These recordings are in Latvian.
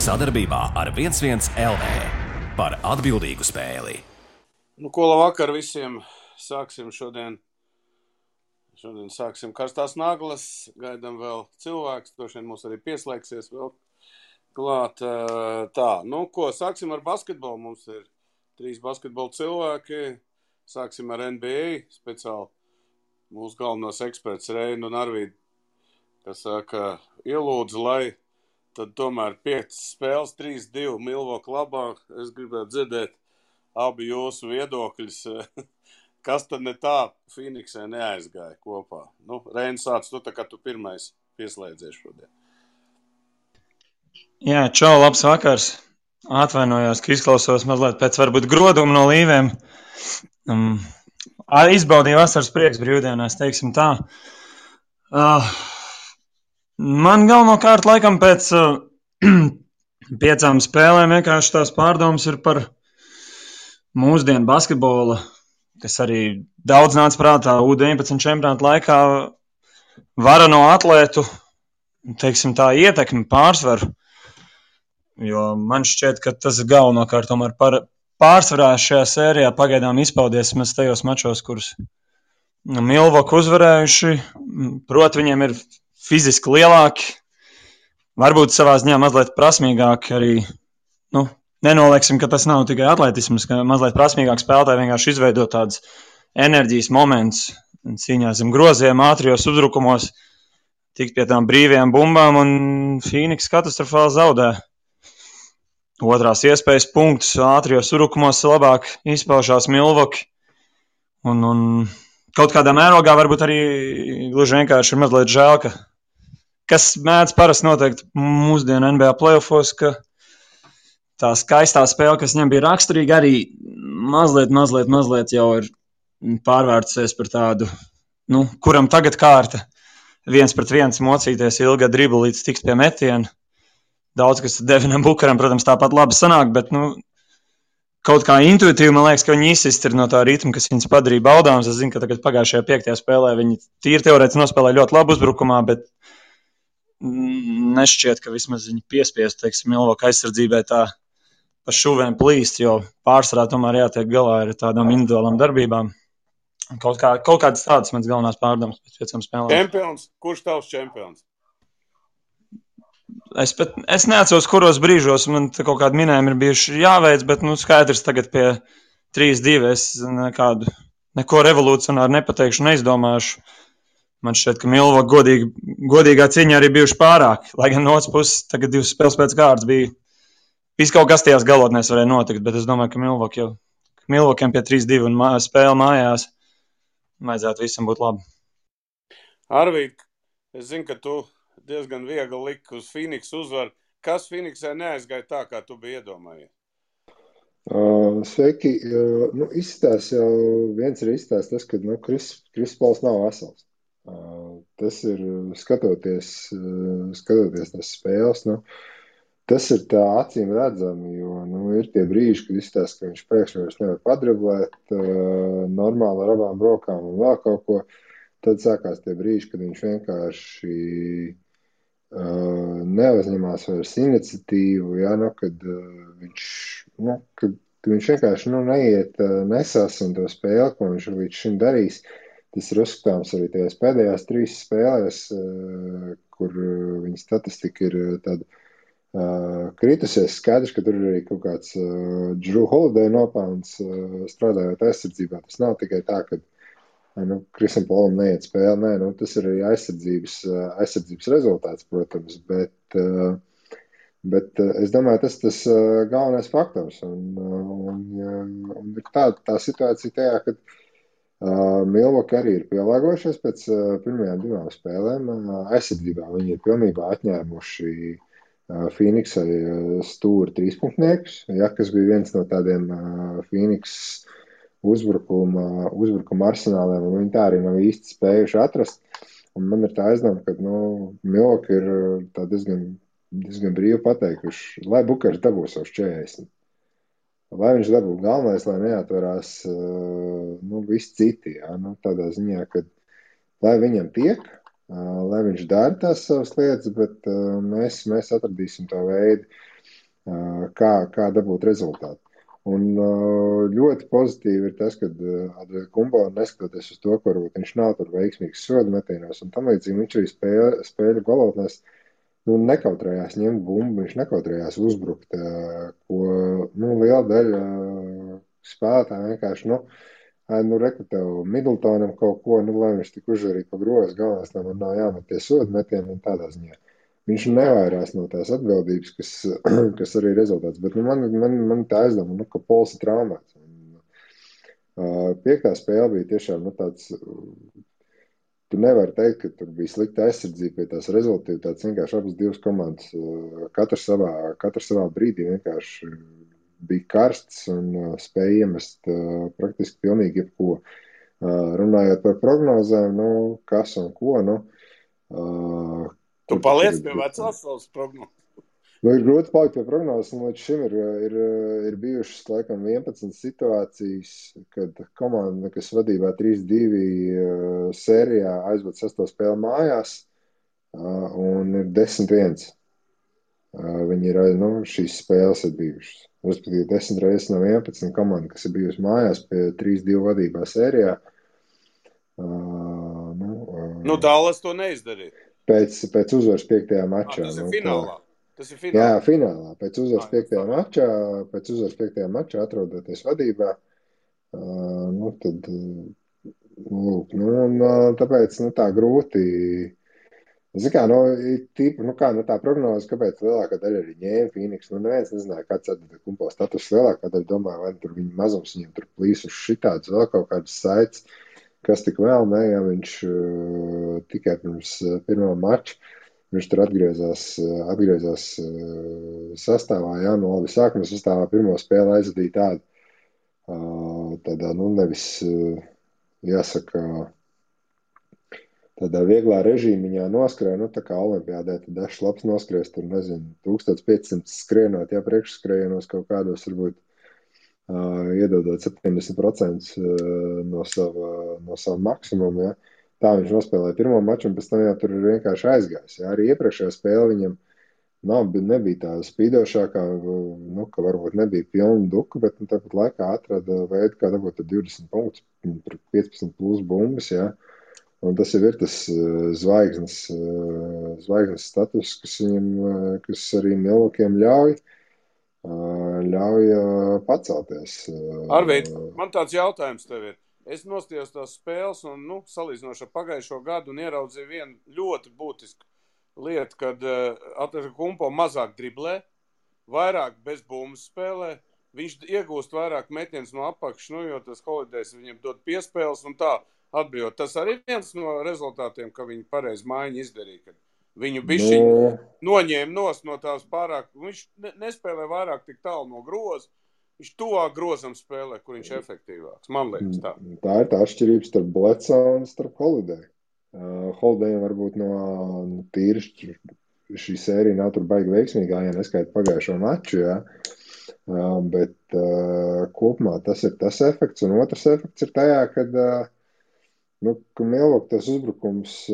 Sadarbībā ar 11 LV par atbildīgu spēli. Ko labvakar visiem. Sāksim šodien sāksim karstās naglas. Gaidām vēl cilvēks. Droši vien mums arī pieslēgsies vēl klāt. Tā, sāksim ar basketbolu. Mums ir 3 basketbola cilvēki. Sāksim ar NBA. Speciāli mūsu galvenos eksperts Reinu un Arvīdu, kas saka, ielūdzu, lai tad tomēr 5 spēles, 3-2 Milwaukee labā. Es gribētu dzirdēt abi jūsu viedokļus. Kas tad ne tā Phoenixē neaizgāja kopā? Reini, sāc tu, tā kā tu pirmais pieslēdzies šodien. Jā, čau, labs vakars. Atvainojos, ka izklausos mazliet pēc varbūt groduma no līvēm. Izbaudīju vasaras prieks brīvdienās, teiksim tā. Man galvenokārt laikam pēc 5 spēlēm vienkārši tās pārdomas ir par mūsdienu basketbola, kas arī daudz nāca prātā U19 čempionāta laikā, varano atlētu, teiksim tā, ietekmi pārsvaru. Jo man šķiet, ka tas ir galvenokārt tomēr pārsvarā šajā sērijā pagaidām izpaudies mēs tajos mačos, kurus Milwaukee uzvarējuši. Proti, viņiem ir fiziski lielāki, varbūt savā ziņā mazliet prasmīgāki arī. Nenolieksim, ka tas nav tikai atletisms, ka mazliet prasmīgāk spēlētāji vienkārši izveido tādas enerģijas moments cīņā zem groziem, ātrijos uzbrukumos, tikt pie tām brīvajām bumbām, un Phoenix katastrofāli zaudē. Otrās iespējas punktus ātrijos uzbrukumos labāk izpaužās Milwaukee. Un kaut kādā mērogā varbūt arī gluži vienkārši ir mazliet žēl, kas mēdz parasti noteikt mūsdienu NBA playoffos, ka tā skaistā spēle, kas viņam bija raksturīga, arī mazliet jau ir pārvērtusies par tādu, kuram tagad kārta 1-pret-1 mocīties ilga dribla līdz tiks pie metiena. Daudz, kas Devinam Bukaram, protams, tāpat labi sanāk, bet kaut kā intuitīvi man liekas, ka viņi izsist ir no tā ritma, kas viņus padarīja baudāms. Es zinu, ka tagad pagājušajā 5. spēlē viņi tīri teorētiski nospēlēja ļoti labu uzbrukumā, bet nešķiet, ka vismaz viņi piespiest, teiksim, Milwaukee aizsardzībai tā pa šuvēm plīst, jo pārsvarā tomēr jātiek galā ar tādām individuālām darbībām. Kaut kādas tādas mans galvenās pārdomas pēc 5 spēlēm. Čempions? Kurš tavs čempions? Es neatceros, kuros brīžos man kaut kādi minējumi ir bijuši jāveic, bet skaidrs tagad pie 3-2 es neko revolucionāri nepateikšu, neizdomāšu. Man šķiet, ka Milwaukee godīgā cīņā arī bijuši pārāk, lai gan no otras puses tagad 2 spēles pēc kārtas bija. Viss kaut kas tajās galotnēs varēja notikt, bet es domāju, ka Milwaukee'm pie 3-2 un spēle mājās vajadzētu visam būt labi. Arvīd, es zinu, ka tu diezgan viegli liki uz Phoenix uzvaru. Kas Phoenixē neaizgāja tā, kā tu biji iedomājies? Sveiki. Viens ir izstāsts tas, ka Kris Pols nav vesels. Tas ir skatoties tās spēles. Tas ir tā acīm redzami, jo ir tie brīži, kad izstāsta, ka viņš pēkšņi vairs nevar padriblēt normāli ar abām rokām un vēl kaut ko. Tad sākās tie brīži, kad viņš vienkārši neuzņemās vairs iniciatīvu, kad viņš vienkārši neiet nesas un to spēli, ko viņš līdz šim darīs. Tas ir uzskatāms arī tajās pēdējās 3 spēlēs, kur viņa statistika ir tāda kritusies. Skaidrs, ka tur ir arī kaut kāds Drew Holiday nopelns strādājot aizsardzībā. Tas nav tikai tā, ka Krisam Polam neiet spēle, tas ir arī aizsardzības rezultāts, protams, bet es domāju, tas galvenais faktors. Un ir tā situācija tajā, ka Milwaukee arī ir pielāgojušies pēc pirmajām 2 spēlēm. Aizsardzībā viņi ir pilnībā atņēmuši Phoenixai stūri 3-punktniekus, kas bija viens no tādiem Phoenix uzbrukuma arsenāliem, un viņi tā arī nav īsti spējuši atrast. Un man ir tā aizdoma, ka Milwaukee ir tā diezgan brīvi pateikuši, lai Bukers dabūs savus 40. Lai viņš dabū galvenais, lai neatverās visi citi. Tādā ziņā, ka lai viņam tiek, lai viņš dara tās savas lietas, bet mēs atradīsim to veidu. kā dabūt rezultātu. Un ļoti pozitīvi ir tas, ka Adrian Kumbo, neskatoties uz to, ka varbūt viņš nav tur veiksmīgs sodu metienos un tam līdzīgi, viņš arī spēļu galotnēs nekautrējās ņemt bumbu, viņš nekautrējās uzbrukt, ko liela daļa spēlētāji vienkārši, reku tev Middletonam kaut ko, lai viņš tik uzžarīja pa grozu, galvenais, lai man nav jāmet tie sodu metieni un tādā ziņā. Viņš nevairās no tās atbildības, kas arī ir rezultāts. Bet man tā aizdoma, ka Pols ir traumēts. Piektā spēle bija tiešām tāds. Tu nevari teikt, ka tur bija slikta aizsardzība pie tās rezultātas. Vienkārši abas divas komandas, katrs savā brīdī vienkārši bija karsts un spēja iemest praktiski pilnīgi jebko. Runājot par prognozēm, kas un ko, Tu paliec pie vecās savas prognozes. Ir grūti palikt pie prognozes, un līdz šim ir bijušas laikam 11 situācijas, kad komanda, kas vadībā 3-2 sērijā aizved 6. spēli mājās, un ir 10-1. Viņi ir, šīs spēles ir bijušas. Respektīvi 10 reizes no 11 komanda, kas ir bijusi mājās pie 3-2 vadībā sērijā. Dallas to neizdarīja. Pēc uzvaras 5. mačā. Tas ir finālā. Jā, finālā. Pēc uzvaras 5. mačā, atrodoties vadībā, tad, tāpēc, tā grūti. Tā prognoze, kāpēc lielākā daļa arī ņēma Phoenix, neviens nezināja, kāds atdod Kumpo status, lielākā daļa domāja, vai tur viņa mazums viņam tur plīsuši šitāds, vēl kaut kādas saites, kas tik vēl ne, ja viņš tikai pirms pirmā mača, viņš tur atgriezās sastāvā, labi, sākuma sastāvā pirmo spēli aizvadīja tādā, nevis, jāsaka, tādā vieglā režīmiņā noskrēja, tā kā olimpiādē, tad dažs labs noskrēs, tur, 1500 skrienot, priekšskrējienos kaut kādos, varbūt, iedodot 70% no sava maksimuma, Tā viņš nospēlēja pirmo maču, un pēc tam jau tur ir vienkārši aizgājis. Arī iepriekšējā spēle viņam nebija tā spīdošākā, ka varbūt nebija pilna duka, bet tāpat laikā atrada veidu, kā dabūt 20 punktus, 15 plus bumbas, Un tas jau ir tas zvaigznes status, kas arī Milvokiem ļauj pacelties. Arvīd, man tāds jautājums tev ir. Es nostījos tās spēles un, salīdzinoši ar pagājušo gadu un ieraudzīju vienu ļoti būtisku lietu, kad Kumpo mazāk driblē, vairāk bez bumbas spēlē, viņš iegūst vairāk metienus no apakšas, jo tas Holidays viņam dod piespēles un tā atbrīvot. Tas arī viens no rezultātiem, ka viņi pareizi maiņu izdarīja, kad viņu bišķiņu noņēma no tās pārāk, viņš nespēlē vairāk tik tālu no groza. Viņš tuvāk grozam spēlē, kur viņš efektīvāks. Man liekas tā. Tā ir tā atšķirības starp Bledsoe un starp Holiday. Holidayam varbūt no tīri šī sērija nav tur baigi veiksmīgā, ja neskaita pagājušo maču, bet kopumā tas ir tas efekts. Un otrs efekts ir tajā, kad Milwaukee tas uzbrukums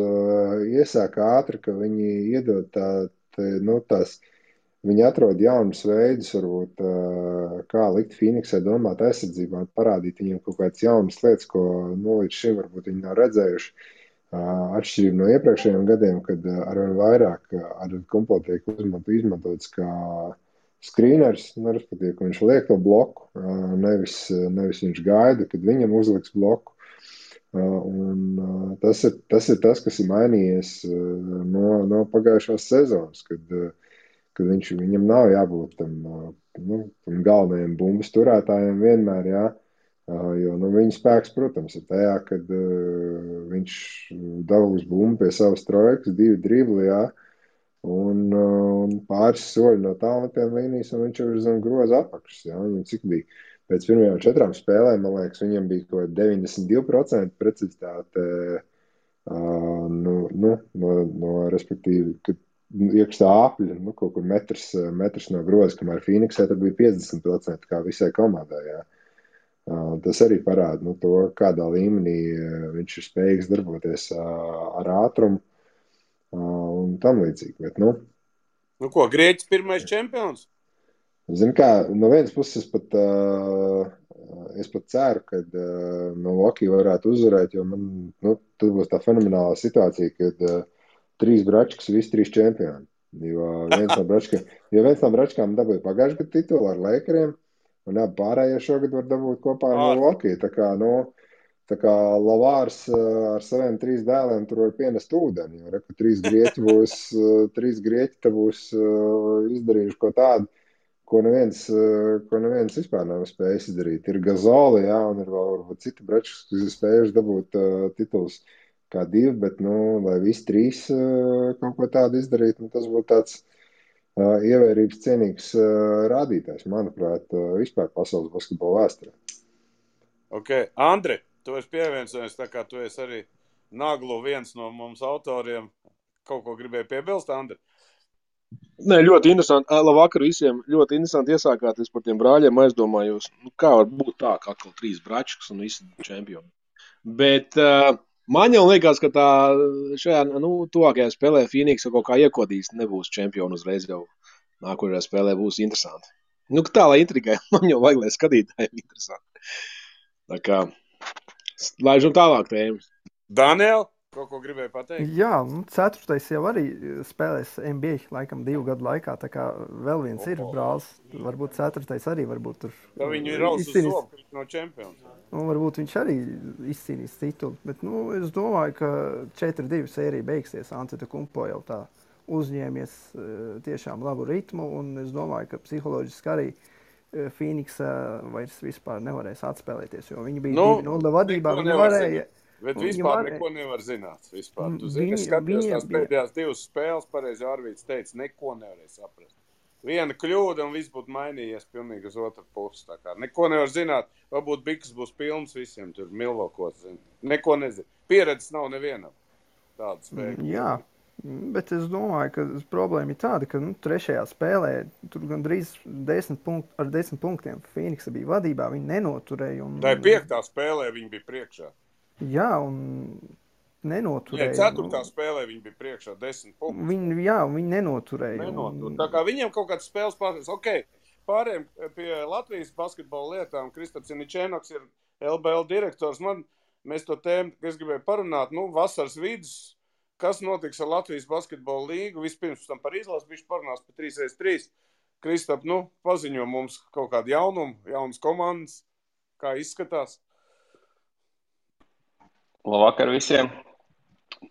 iesāk ātri, ka viņi iedod tās. Viņi atrod jaunus veidus, varbūt, kā likt Phoenixai domāt aizsardzībā un parādīt viņiem kaut kādas jaunas lietas, ko līdz šim varbūt viņi nav redzējuši. Atšķirība no iepriekšējiem gadiem, kad arvien vairāk Kumpo tiek izmantots kā screeners, respektīvi, ka viņš liek to bloku, nevis viņš gaida, kad viņam uzliks bloku. Un tas ir tas, kas ir mainījies no pagājušās sezonas, kad viņam nav jābūt tam galvenajam bumbas turētājiem vienmēr, jo viņa spēks, protams, ir tajā, kad viņš dabūs bumbu pie savas trojkas, 2 dribli, un pāris soļi no tālmetiem līnijas, un viņš jau ir zem groza apakšas, viņam cik bija pēc pirmajām 4 spēlēm, man liekas, viņam bija kaut 92% precizitāte, respektīvi, kad iekšā apļa, kaut kur metrs no groza, kamēr Phoenixē tad bija 50% kā visai komandai, Tas arī parāda, to, kādā līmenī viņš ir spējīgs darboties ar ātrumu un tam līdzīgi, bet, Ko, Grieķis pirmais čempions? Zini kā, no vienas puses es pat ceru, ka Milwaukee varētu uzvarēt, jo man, tad būs tā fenomenālā situācija, kad 3 bračkas, visi 3 čempioni. Jo viens no bračkām dabūja pagājušajā gadu titulu ar Lakeriem, un abi pārējie šogad var dabūt kopā ar Milwaukee. Tā kā Lavārs ar saviem 3 dēliem tur var pienest ūdeni, jo reku 3 grieķi te būs izdarījuši ko tādu, ko neviens vispār nav spējis izdarīt. Ir Gazoli, jā, un ir vēl varbūt citi brečus, kas ir spējuši dabūt tituls kā 2, bet, lai visi 3 kaut ko tādu izdarītu, tas būtu tāds ievērības cienīgs rādītājs, manuprāt, vispār pasaules basketbola vēsturē. Ok, Andri, tu esi pievienojies, tā kā tu esi arī Naglu viens no mums autoriem. Kaut ko gribēji piebilst, Andri? Nē, ļoti interesanti. Labvakar visiem. Ļoti interesanti iesākāties par tiem brāļiem. Aizdomājos, kā var būt tā, ka atkal 3 bračkas un visi čempioni. Bet man jau liekas, ka tā šajā tuvākajā spēlē Phoenix kaut kā iekodīs, nebūs čempioni uzreiz jau nākošajā spēlē būs interesanti. Tā, lai intrigai, man jau vajag, lai skatītājiem interesanti. Tā kā, laižam tālāk tēmas. Daniel? Kaut ko gribēju pateikt? Jā, 4. jau arī spēlēs NBA laikam 2 gadu laikā, tā kā vēl viens ir brālis. Varbūt 4. arī varbūt tur. Tā viņu ir raus uz soku no čempions. Varbūt viņš arī izcīnīs titulu, bet es domāju, ka 4-2 sērija beigsies. Antetokounmpo jau tā uzņēmies tiešām labu ritmu, un es domāju, ka psiholoģiski arī Phoenix vairs vispār nevarēs atspēlēties, jo viņi bija 2-0 vadībā, viņi varēja. Bet vispār neko nevar zināt. Vispār. Tu zini, es skatījos tās pēdējās 2 spēles, pareizi Arvīts teica, neko nevarēja saprast. Viena kļūda un viss būtu mainījies pilnīgi uz otru pusi. Tā kā neko nevar zināt. Varbūt biks būs pilns visiem tur Milvokos. Neko nezinu. Pieredzes nav nevienam. Tāda spēja. Jā, bet es domāju, ka problēma ir tāda, ka 3. spēlē tur gandrīz 10 punktiem Phoenixa bija vadībā, viņi nenoturēja. Tā ir 5. spēlē viņi bija priekšā. Jā, un nenoturēja. 4. spēlē viņi bija priekšā 10 punktus. Viņi nenoturēja. Tā kā viņiem kaut kāds spēles pārējais. Ok, pārējiem pie Latvijas basketbola lietām. Kristaps Ničēnoks ir LBL direktors. Mēs to tēmu, es gribēju parunāt, vasaras vidus, kas notiks ar Latvijas basketbola līgu. Vispirms tam par izlasu bišķi parunās par 3x3. Kristap, paziņo mums kaut kādu jaunumu, jaunas komandas, kā izskatās. Labvakar visiem.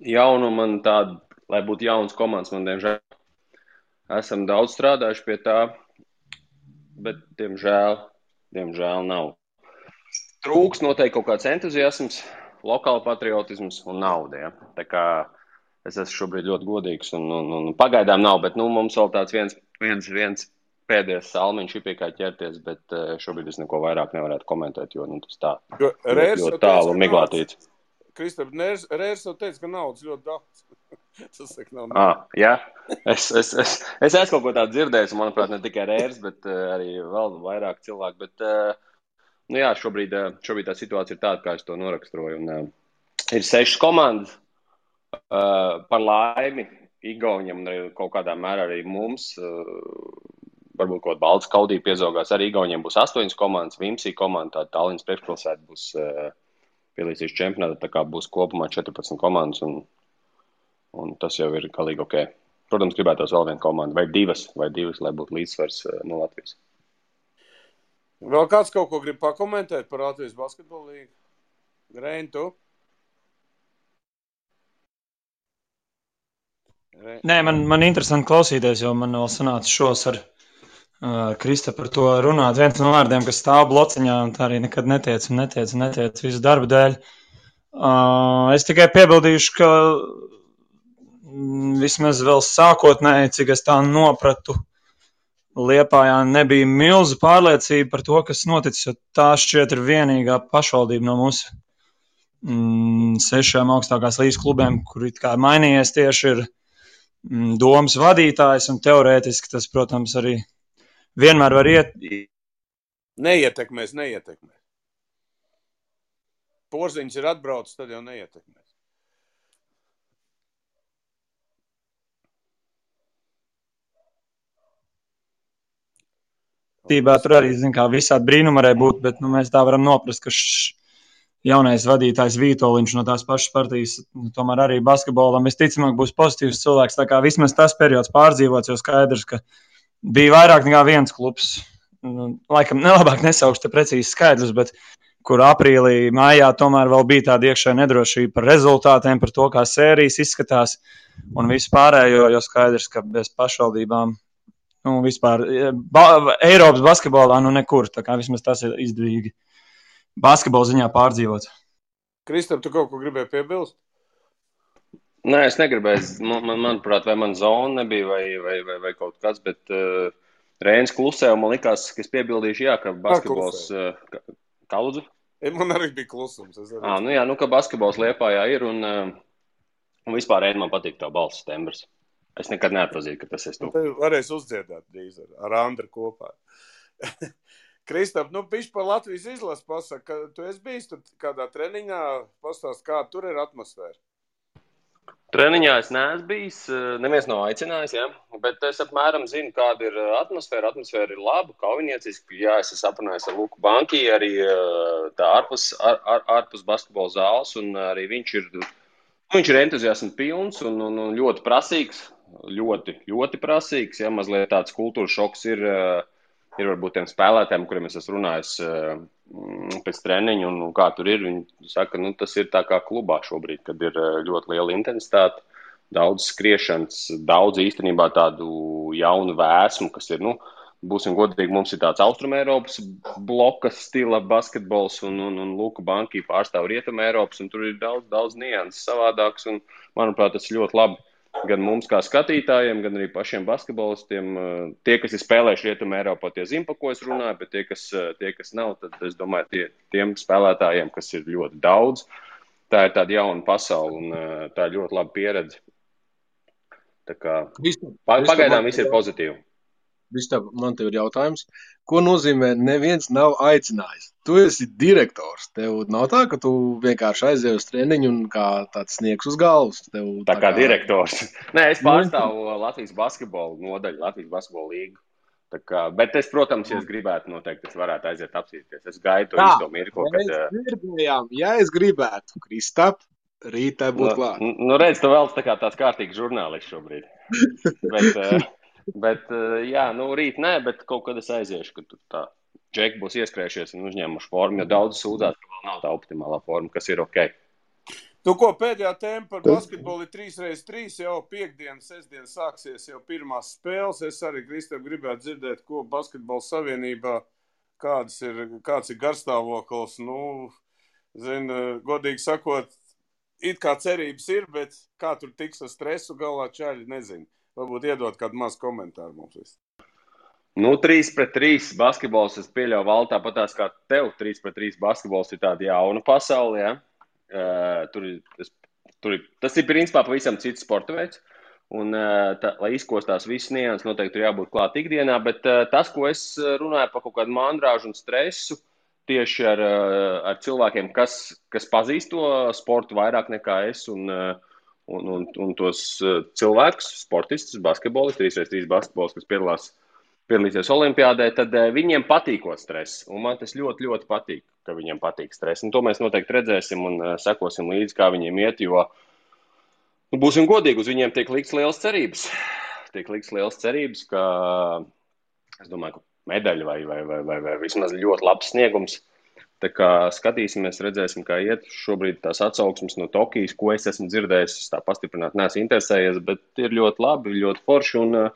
Jaunu man tādu, lai būtu jauns komandas, man diemžēl. Esam daudz strādājuši pie tā, bet diemžēl nav. Trūks noteikti kaut kāds entuziasms, lokāla patriotisms un nauda. Ja? Tā kā es esmu šobrīd ļoti godīgs un pagaidām nav, bet mums vēl tāds viens pēdējais salmiņš ir pie kā ķerties, bet šobrīd es neko vairāk nevarētu komentēt, jo tas tā ļoti tālu miglātīts. Kristap, Rērs jau teica, ka naudas ļoti daudz. Tas saka, nav naudas. Jā, es esmu kaut ko tādu dzirdējis, manuprāt, ne tikai Rērs, bet arī vēl vairāk cilvēku. Bet, jā, šobrīd tā situācija ir tāda, kā es to noraksturoju. Un, ir 6 komandas par laimi Igauņiem un kaut kādā mērā arī mums. Varbūt kaut Baltas Kaudī piezaugās. Arī Igauņiem būs 8 komandas, Vimsī komanda, tā Tallinas priekšpilsēta būs pielīdzīs čempionātā, tā kā būs kopumā 14 komandas, un tas jau ir galīgi ok. Protams, gribētos vēl vienu komandu, vai divas, lai būtu līdzsvars no Latvijas. Vēl kāds kaut ko grib pakomentēt par Latvijas basketbolu līgu? Reini, tu? Nē, man interesanti klausīties, jo man vēl sanāca šos ar Krista par to runāt. Viens no vārdiem, kas stāv blociņā, un tā arī nekad netiec visu darbu dēļ. Es tikai piebildīšu, ka vismaz vēl sākotnēji, cik es tā nopratu, Liepājā nebija milzu pārliecība par to, kas noticis, jo tā šķiet ir vienīgā pašvaldība no mūsu 6 augstākās līgas klubiem, kur it kā mainījies tieši ir domas vadītājs, un teorētiski tas, protams, arī vienmēr var Neietekmēs. Porziņš ir atbraucis, tad jau neietekmēs. Tībā tur arī, visādi brīnumi varēja būt, bet mēs tā varam noprast, ka jaunais vadītājs Vītoliņš no tās pašas partijas, tomēr arī basketbolam visticamāk būs pozitīvs cilvēks. Tā kā vismaz tas periods pārdzīvots, jau skaidrs, ka bija vairāk nekā viens klubs. Laikam nelabāk nesaukšu te precīzi skaidrs, bet kur aprīlī, mājā tomēr vēl bija tāda iekšējā nedrošība par rezultātiem, par to, kā sērijas izskatās un visu pārējo, jo skaidrs, ka bez pašvaldībām vispār Eiropas basketbolā nekur, tā kā vismaz tas ir izdevīgi basketbola ziņā pārdzīvot. Kristap, tu kaut ko gribēji piebilst? Nē, es negribēju. Manuprāt, vai man zona nebija vai kaut kas, bet Reinis klusē, un man likās, ka es piebildīšu, ka basketbols... Kā lūdzu? Man arī bija klusums. Ka basketbols Liepājā ir, un vispār Reini man patīk tā balss tembrs. Es nekad neatpazīju, ka tas esi tu. Varēs uzdziedāt drīz ar Andru kopā. Kristap, bišķi par Latvijas izlases pasaka, ka tu esi bijis tur kādā treniņā, pastāst, kā tur ir atmosfēra. Treniņā es neesmu bijis, neviens nav aicinājis, bet es apmēram zinu, kāda ir atmosfēra. Atmosfēra ir laba, kaujinieciski. Es esmu aprunājis ar Luku Banki, arī tā ārpus basketbola zāles, un arī viņš ir entuziasma pilns un ļoti prasīgs. Ļoti prasīgs, mazliet tāds kultūras šoks ir varbūt tiem spēlētājiem, kuriem es esmu runājis pēc treniņa un kā tur ir. Viņi saka, tas ir tā kā klubā šobrīd, kad ir ļoti liela intensitāte, daudz skriešanas, daudz īstenībā tādu jaunu vēsmu, kas ir, būsim godīgi, mums ir tāds Austrumēropas bloka stila basketbols un Luka Banki pārstāv Rietumēropas, un tur ir daudz nianses savādāks, un manuprāt, tas ir ļoti labi. Gan mums kā skatītājiem, gan arī pašiem basketbolistiem. Tie, kas ir spēlējuši Rietumē Eiropā, tie zina, pa ko es runāju, bet tie, kas nav, tad es domāju, tiem spēlētājiem, kas ir ļoti daudz, tā ir tāda jauna pasaule un tā ir ļoti laba pieredze. Tā kā pagaidām viss ir pozitīvi. Vistāp, man tev ir jautājums, ko nozīmē neviens nav aicinājis? Tu esi direktors, tev nav tā, ka tu vienkārši aizēji uz treniņu un kā tāds sniegs uz galvas. Tā kā direktors. Nē, es pārstāvu Latvijas basketbolu nodaļu, Latvijas basketbolu līgu. Bet es, protams, ja es gribētu, noteikti es varētu aiziet apsīties. Es gaidu to īsto mirko, kad... Ja es gribētu, Kristap, rītā būtu klāt. Redz, tu vēl tāds kārtīgs žurnālists šobrīd. Bet, rīt nē, bet kaut kad es aiziešu, ka tur tā džeki būs ieskrējušies un uzņēmuši formu, jo daudz sūdzās, ka vēl nav tā optimālā forma, kas ir ok. Pēdējā tēma par basketbolu ir 3x3, jau piekdien, sestdien sāksies jau pirmās spēles. Es arī, Kristap, gribētu dzirdēt, ko basketbola savienībā, kāds ir garstāvoklis. Godīgi sakot, it kā cerības ir, bet kā tur tiks ar stresu galā čaļi, nezinu. Varbūt iedot kādu mazu komentāru mums visu. 3x3 basketbols, es pieļauju vēl tāpatās kā tev, 3x3 basketbols ir tāda jauna pasaule, ja? Tas ir principā pavisam cits sporta veids, un lai izkostās viss nianses, noteikti tur jābūt klāt ikdienā, bet tas, ko es runāju par kaut kādu mandrāžu un stresu, tieši ar cilvēkiem, kas pazīst to sportu vairāk nekā es, un tos cilvēkus, sportistus, basketbolistus, 3x3 basketbols, kas piedalīsies olimpiādē, tad viņiem patīkot stress. Un man tas ļoti, ļoti patīk, ka viņiem patīk stress. Un to mēs noteikti redzēsim un sekosim līdzi, kā viņiem iet, jo būsim godīgi, uz viņiem tiek likts liels cerības. Ka, es domāju, ka medaļa vai vismaz ļoti labs sniegums. Tā kā skatīsimies, redzēsim, kā iet šobrīd tās atsauksmes no Tokijas, ko es esmu dzirdējis, es tā pastiprināt neesmu interesējies, bet ir ļoti labi, ļoti forši. Un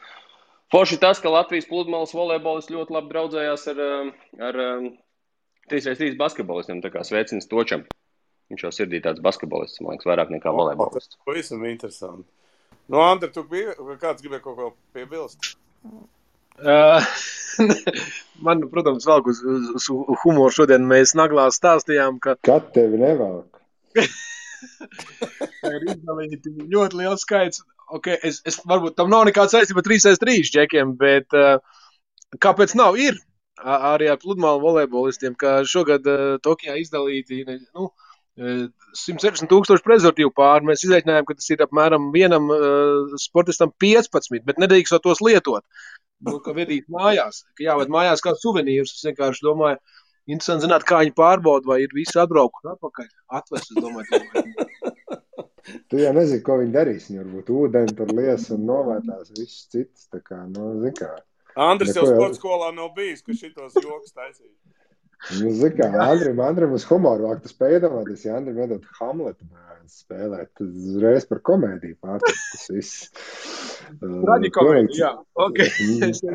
forši tas, ka Latvijas pludmales volejbolis ļoti labi draudzējās ar 3x3 basketbolistiem, tā kā sveiciens Točam. Viņš jau sirdī tāds basketbolists, man liekas, vairāk nekā volejbolists. Tas pavisam interesanti. Andri, kāds gribēja kaut ko piebilst? Man, protams, vēl uz humoru šodien mēs naglā stāstījām, ka... Kad tevi nevelk? Ir izdalīti ļoti liels skaits. Okay, es varbūt tam nav nekāds saistība 3x3 džekiem, bet kāpēc nav? Ir arī ar pludmālu volejbolistiem, ka šogad Tokijā izdalīti 160,000 prezervatīvu pāri. Mēs izreikinājām, ka tas ir apmēram vienam sportistam 15, bet nedrīkstot tos lietot. ka vedīt mājās, ka jāved mājās kā suvenīrus. Es vienkārši domāju, interesanti zināt, kā viņi pārbauda, vai ir visi atbraukuši atpakaļ. Atvest, es domāju. Tu jau nezini, ko viņi darīs. Viņi varbūt ūdeni tur lies un novērtās visus citus. Tā kā, zin kā. Andris jau Neko sporta skolā nav bijis, ka šitos joks taisīs. Zin kā, Andrim uz humoru vāk, tu spēj iedomāties, ja Andrim iedot Hamletu spēlēt, tad uzreiz par komēdiju pārtikt tas viss. Traģikomēdija, jā. Okay.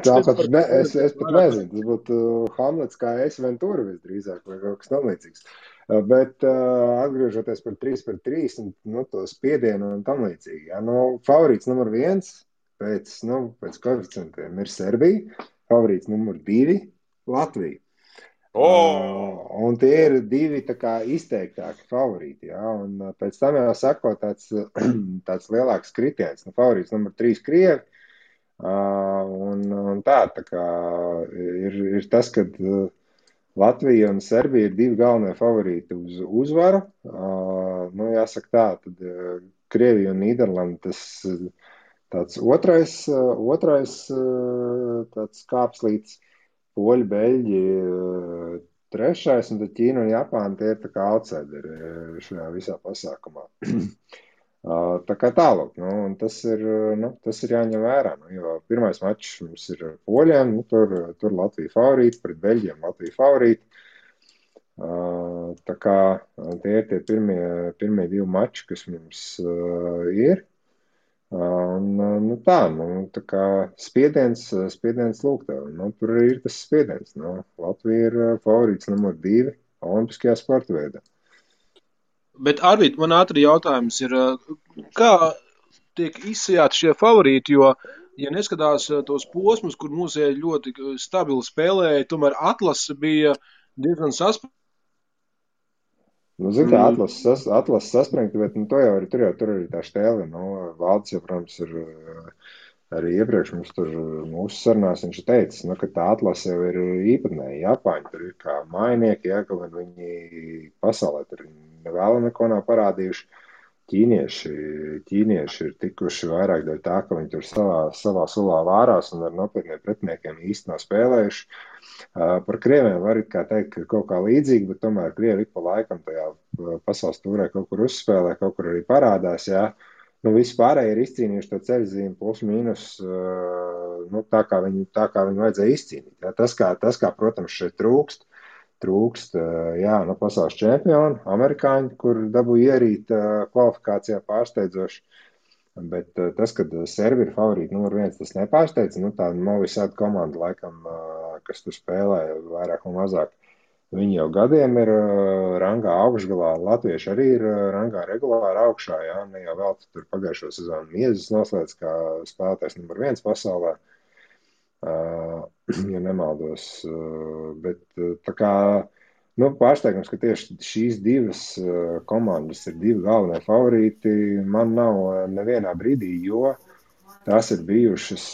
Tāpat es pat nezinu, tas būtu Hamlets kā es Ventura visdrīzāk vai kaut kas tam līdzīgs. Bet atgriežoties par 3-3 un to spiedienu un tam līdzīgi. Ja, favorīts numur 1 pēc koeficientiem ir Serbija, favorīts numur 2 Latvija. Un tie ir 2 tā kā izteiktāki favorīti, ja? Un pēc tam jau sako tāds lielāks kritiens. Favorīts numur 3 Krievi, un tā kā ir tas, ka Latvija un Serbija ir 2 galvenie favorīti uz uzvaru. Jāsaka tā, tad Krievija un Nīderlanda tas tāds otrais tāds kāpslīts. Poļi, Beļģi, 3. un tad Ķīna un Japāna tie ir tā kā outsideri šajā visā pasākumā. Tā kā tālāk, un tas ir jāņem vērā, jo pirmais mačs mums ir Poļiem, tur Latvija favorīti, pret Beļģiem Latvija favorīti. Tā kā tie ir tie pirmie 2 mači, kas mums ir. Tā kā spiediens lūk tev, tur ir tas spiediens, Latvija ir favorīts numur 2 olimpiskajā sporta veidā. Bet, Arvīt, man ātri jautājums ir, kā tiek izsajāti šie favorīti, jo, ja neskatās tos posmus, kur mūsēji ļoti stabili spēlēja, tomēr atlase bija diezgan saspringta. Zin kā, atlases saspringta, bet tur arī tā Štēle, Valdis jau, protams, ir arī iepriekš mums tur mūsu sarunās viņš teicis, ka tā atlase jau ir īpatnēji. Japāņi tur ir kā mājnieki, kaut gan viņi pasaulē tur vēl neko nav parādījuši. Ķīnieši ir tikuši vairāk dēļ tā, ka viņi tur savā sulā vārās un ar nopietniem pretiniekiem īsti nav spēlējuši. Par Krieviem var kā teikt, ka kaut kā līdzīgi, bet tomēr Krievi ik pa laikam tajā pasaules tūrē kaut kur uzspēlē, kaut kur arī parādās, jā. Visi pārējie ir izcīnījuši to ceļzīmi plus mīnus, tā kā viņu vajadzēja izcīnīt. Jā. Tas, kā, protams, šeit trūkst, pasaules čempioni, amerikāņi, kur dabūja ierīt kvalifikācijā pārsteidzoši. Bet tas, kad Serbi ir favorīti numur 1, tas nepārsteidz. Tā Novi Sad komanda, laikam, kas tur spēlē vairāk un mazāk, viņi jau gadiem ir rangā augšgalā. Latvieši arī ir rangā regulāri augšā, jā, ne jau vēl tur pagājušo sezonu Miezes noslēdz kā spēlētājs numur 1 pasaulē, ja nemaldos. Bet tā kā, pārsteigums, ka tieši šīs 2 komandas ir 2 galvenie favorīti, man nav nevienā brīdī, jo tās ir bijušas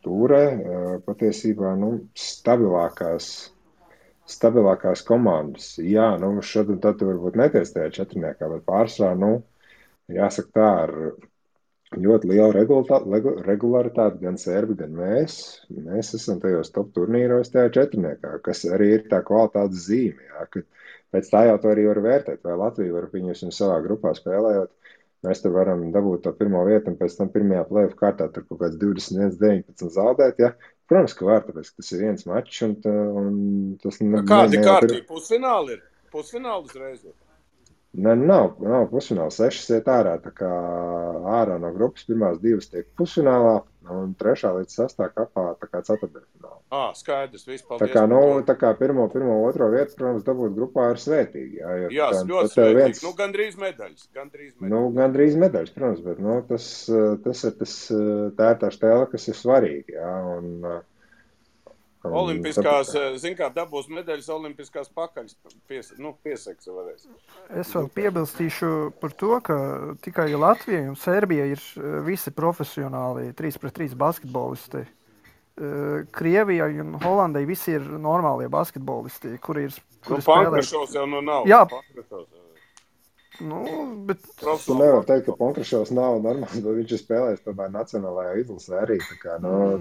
tūrē patiesībā stabilākās komandas. Jā, šad un tad varbūt neties tajā 4, bet pārsvarā, jāsaka tā, ar ļoti lielu regularitāti gan Serbi, gan mēs. Mēs esam tajos top turnīros tajā 4, kas arī ir tā kvalitātes zīme. Jā, ka pēc tā jau to arī var vērtēt, vai Latvija var viņus savā grupā spēlējot. Mēs tur varam dabūt to pirmo vietu un pēc tam pirmajā play-off kārtā tur kaut kāds 21-19 zaudēt. Ja? Protams, ka var, tāpēc, ka tas ir viens mačs un tas... Kādi kārtī pusfināli ir? Pusfināli uzreiz ir? Nav pusfināla, 6 iet ārā, tā kā ārā no grupas pirmās 2 tiek pusfinālā un 3. līdz 6. kapā tā kā 4. finālā. Skaidrs, viss, paldies. Tā kā pirmo, 2 vietu, protams, dabūt grupā ir svētīgi. Jā, ļoti svētīgi. Gandrīz medaļas. Gandrīz medaļas, protams, bet tā ir tā Štēle, kas ir svarīga, jā, un Olimpiskās, kā dabūs medaļas, olimpiskās pakaļas pieseks varēs. Es vēl piebilstīšu par to, ka tikai Latvija un Serbija ir visi profesionāli 3-3 basketbolisti. Krievijai un Holandai visi ir normālie basketbolisti, kuri spēlē. Pankrašovs jau nav. Jā. Nu, bet Tu nevar teikt, ka Ponkrašovs nav normāls, bet viņš ir spēlējis tomēr nacionālajā izlasē arī. Tā kā,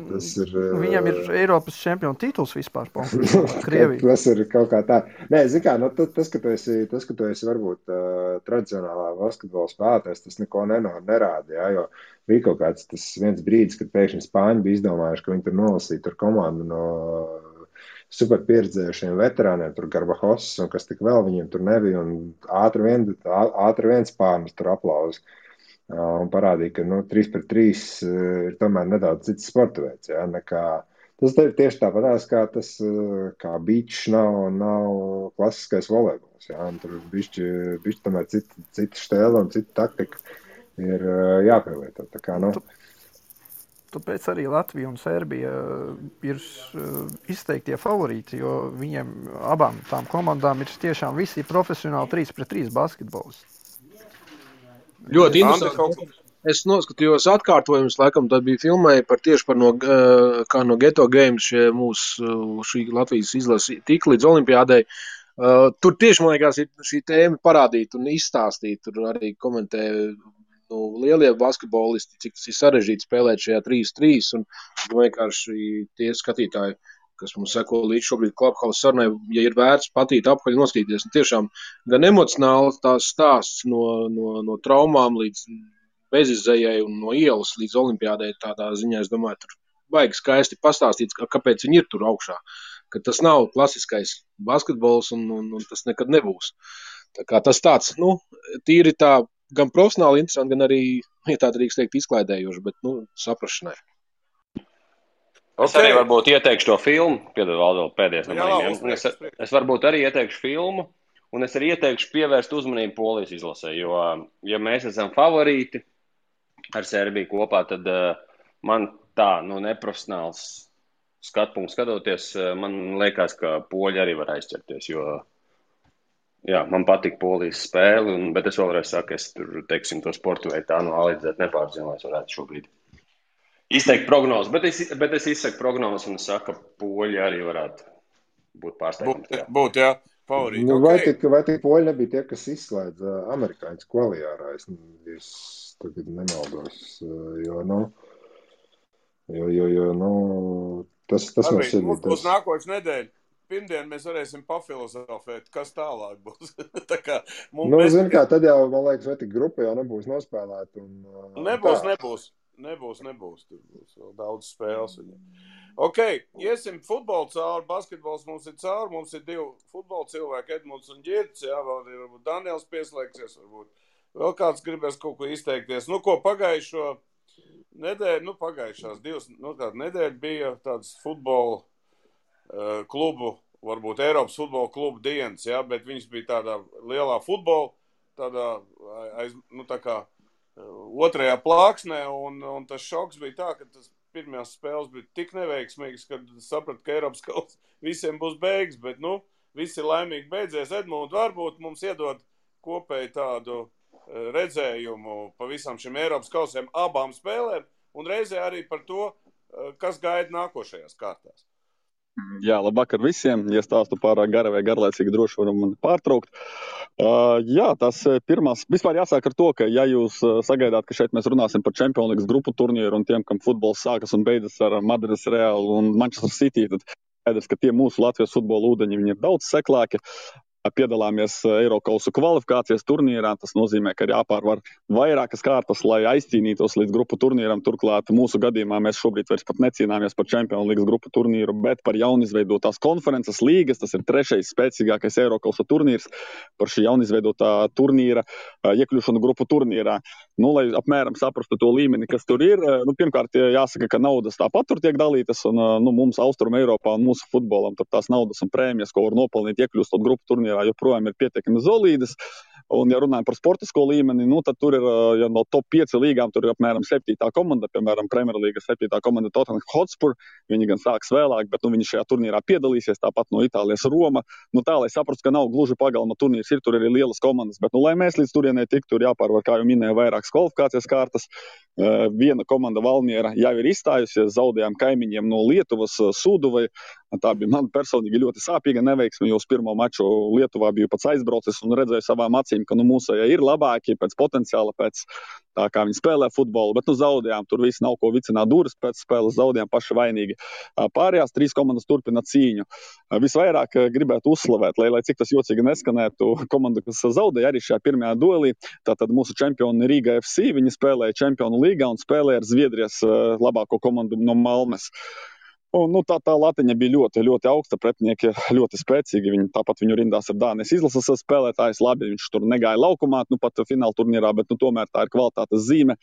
tas ir... Viņam ir Eiropas čempionu tituls vispār, Krievija. Tas ir kaut kā tā. Nē, zin kā, tas, ka tu esi varbūt tradicionālā basketbola spēlētājs, tas neko nerāda, jā, jo bija kaut kāds tas viens brīdis, kad pēkšņi Spāņi bija izdomājuši, ka viņi tur nolasīja tur komandu no super pieredzējušiem veterāniem, tur Garbahos un kas tik vēl viņiem tur nebija, un ātri vien Spānis tur aplauzi. Un parādīja, ka 3-3 ir tomēr nedaudz cits sporta veids, jā, nekā. Tas ir tieši tāpatās, kā tas, kā beach nav klasiskais volejbols, jā, un tur bišķi tomēr cita štēla un cita taktika ir jāpielieto, tā kā, Tāpēc arī Latvija un Serbija ir izteiktie favorīti, jo viņiem abām tām komandām ir tiešām visi profesionāli 3-3 basketbols. Ļoti interesanti. Es noskatījos atkārtojumus, laikam tad bija filmēja tieši par kā no Geto Games šī Latvijas izlase tik līdz olimpiādei. Tur tieši, man liekas, šī tēma parādīt un izstāstīt. Tur arī komentē lielie basketbolisti, cik tas ir sarežģīti spēlēt šajā 3-3, un vienkārši tie skatītāji, kas mums seko līdz šobrīd Clubhouse sarunai, ja ir vērts patīt apkaļ noskatīties, un tiešām gan emocionāli tās stāsts no traumām līdz bezizējai un no ielas līdz olimpiādai tādā ziņā, es domāju, tur vajag skaisti pastāstīt, kāpēc viņi ir tur augšā, ka tas nav klasiskais basketbols un tas nekad nebūs. Tā kā tas tāds, tīri tā, gan profesionāli interesanti, gan arī, ja tā drīkst teikt, izklaidējoši, bet, saprašanai. Es arī varbūt ieteikšu to filmu, piedod vēl pēdējais no maniem. Es varbūt arī ieteikšu filmu, un es arī ieteikšu pievērst uzmanību Polijas izlasē, jo, ja mēs esam favorīti ar Serbiju kopā, tad man tā, neprofesionāls skatpunkts skatoties, man liekas, ka poļi arī var aizķerties, jo, jā, man patīk Polijas spēle, bet es vēlreiz saku, es tur, teiksim, to sportu veidu tā analīzēt nepārzinu, lai es varētu šobrīd izteikt prognozes, bet es izsaku prognozes un es saku, ka poļi arī varētu būt pārsteigums. Būt, jā, favorīti. Vai tik poļi nebija tie, kas izslēdz amerikāņus kvaliārā? Es tagad nemaldos, tas mums ir. Mums nākošais nedēļa. Pirmdien mēs varēsim pafilozofēt, kas tālāk būs. Tā kā zin kā, tad jau, man liekas, vai tik grupa jau nebūs nospēlēta. Nebūs. Tur būs vēl daudz spēles. Ok, iesim futbolu cauri, basketbols mums ir cauri, mums ir 2 futbola cilvēki, Edmunds un Ģirts, jā, vēl ir varbūt Daniels pieslēgsies, varbūt vēl kāds gribēs kaut ko izteikties. Ko pagājušo nedēļu, pagājušās 2 nedēļu bija tāds futbola klubu, varbūt Eiropas futbola klubu dienas, jā, bet viņš bija tādā lielā futbola, tādā, tā kā otrajā plāksnē, un tas šoks bija tā, ka tas pirmajās spēles bija tik neveiksmīgs, kad sapratu, ka Eiropas kausa visiem būs beigas, bet, visi laimīgi beidzies. Edmund, varbūt mums iedod kopēji tādu redzējumu pa visam šim Eiropas kausiem abām spēlēm, un reizē arī par to, kas gaida nākošajās kārtās. Jā, labvakar visiem. Ja stāstu pārāk gara vai garlaicīgi, droši varam mani pārtraukt. Jā, tas pirmās, vispār jāsāk ar to, ka ja jūs sagaidāt, ka šeit mēs runāsim par Champions League grupu turnīru un tiem, kam futbols sākas un beidzas ar Madrides Realu un Manchester City, tad skaidrs, ka tie mūsu Latvijas futbola ūdeņi, viņi ir daudz seklāki. Piedalāmies Eirokausu kvalifikācijas turnīrā, tas nozīmē, ka ir jāpārvar vairākas kārtas, lai aizcīnītos līdz grupu turnīram. Turklāt mūsu gadījumā mēs šobrīd vairs pat necīnāmies par Champions League grupu turnīru, bet par jaunizveidotās konferences līgas. Tas ir 3. spēcīgākais Eirokausu turnīrs par šī jaunizveidotā turnīra iekļūšanu grupu turnīrā. Lai apmēram saprastu to līmeni, kas tur ir, pirmkārt jāsaka, ka naudas tāpat tur tiek dalītas, un mums Austrum Eiropā un mūsu futbolam tur tās naudas un prēmijas, ko var nopelnīt iekļūstot grupu turnīrā, joprojām ir pietiekami solīdas. Un, ja runājam par sportisko līmeni, tad tur ir, ja no top 5 līgām, tur ir apmēram 7. komanda, piemēram, Premjerlīgas 7. komanda Tottenham Hotspur. Viņi gan sāks vēlāk, bet viņi šajā turnīrā piedalīsies, tāpat no Itālijas Roma. Tā, lai saprastu, ka nav gluži pagalma turnīrs, ir tur arī lielas komandas, bet, lai mēs līdz turienei tiktu, tur jāpārvar, kā jau minēju, vairākas kvalifikācijas kārtas. Viena komanda Valmiera jau ir izstājusies, zaudējām kaimiņiem no Lietuvas, Sūduvai. Tā bija man personīgi ļoti sāpīga neveiksme, jo uz pirmo maču Lietuvā biju pats aizbraucis un redzēju savām acīm, ka mūsējie ir labāki pēc potenciāla, pēc tā kā viņi spēlē futbolu, bet zaudējām. Tur viss nav ko vicināt durvis, pēc spēles zaudējām paši vainīgi. Pārējās 3 komandas turpina cīņu. Visvairāk gribētu uzslavēt, lai cik tas jocīgi neskanētu, komanda, kas zaudēja arī šajā pirmajā duelī, tātad mūsu čempioni Rīga FC, viņi spēlēja Čempionu līgā un spēlēja ar Zviedrijas labāko komandu no Malmes. Un, tā latiņa bija ļoti, ļoti augsta, pretinieki ļoti spēcīgi. Tāpat viņu rindās ar Dānijas izlases spēlētājs. Labi, viņš tur negāja laukumā, pat fināla turnīrā, bet tomēr tā ir kvalitātes zīme.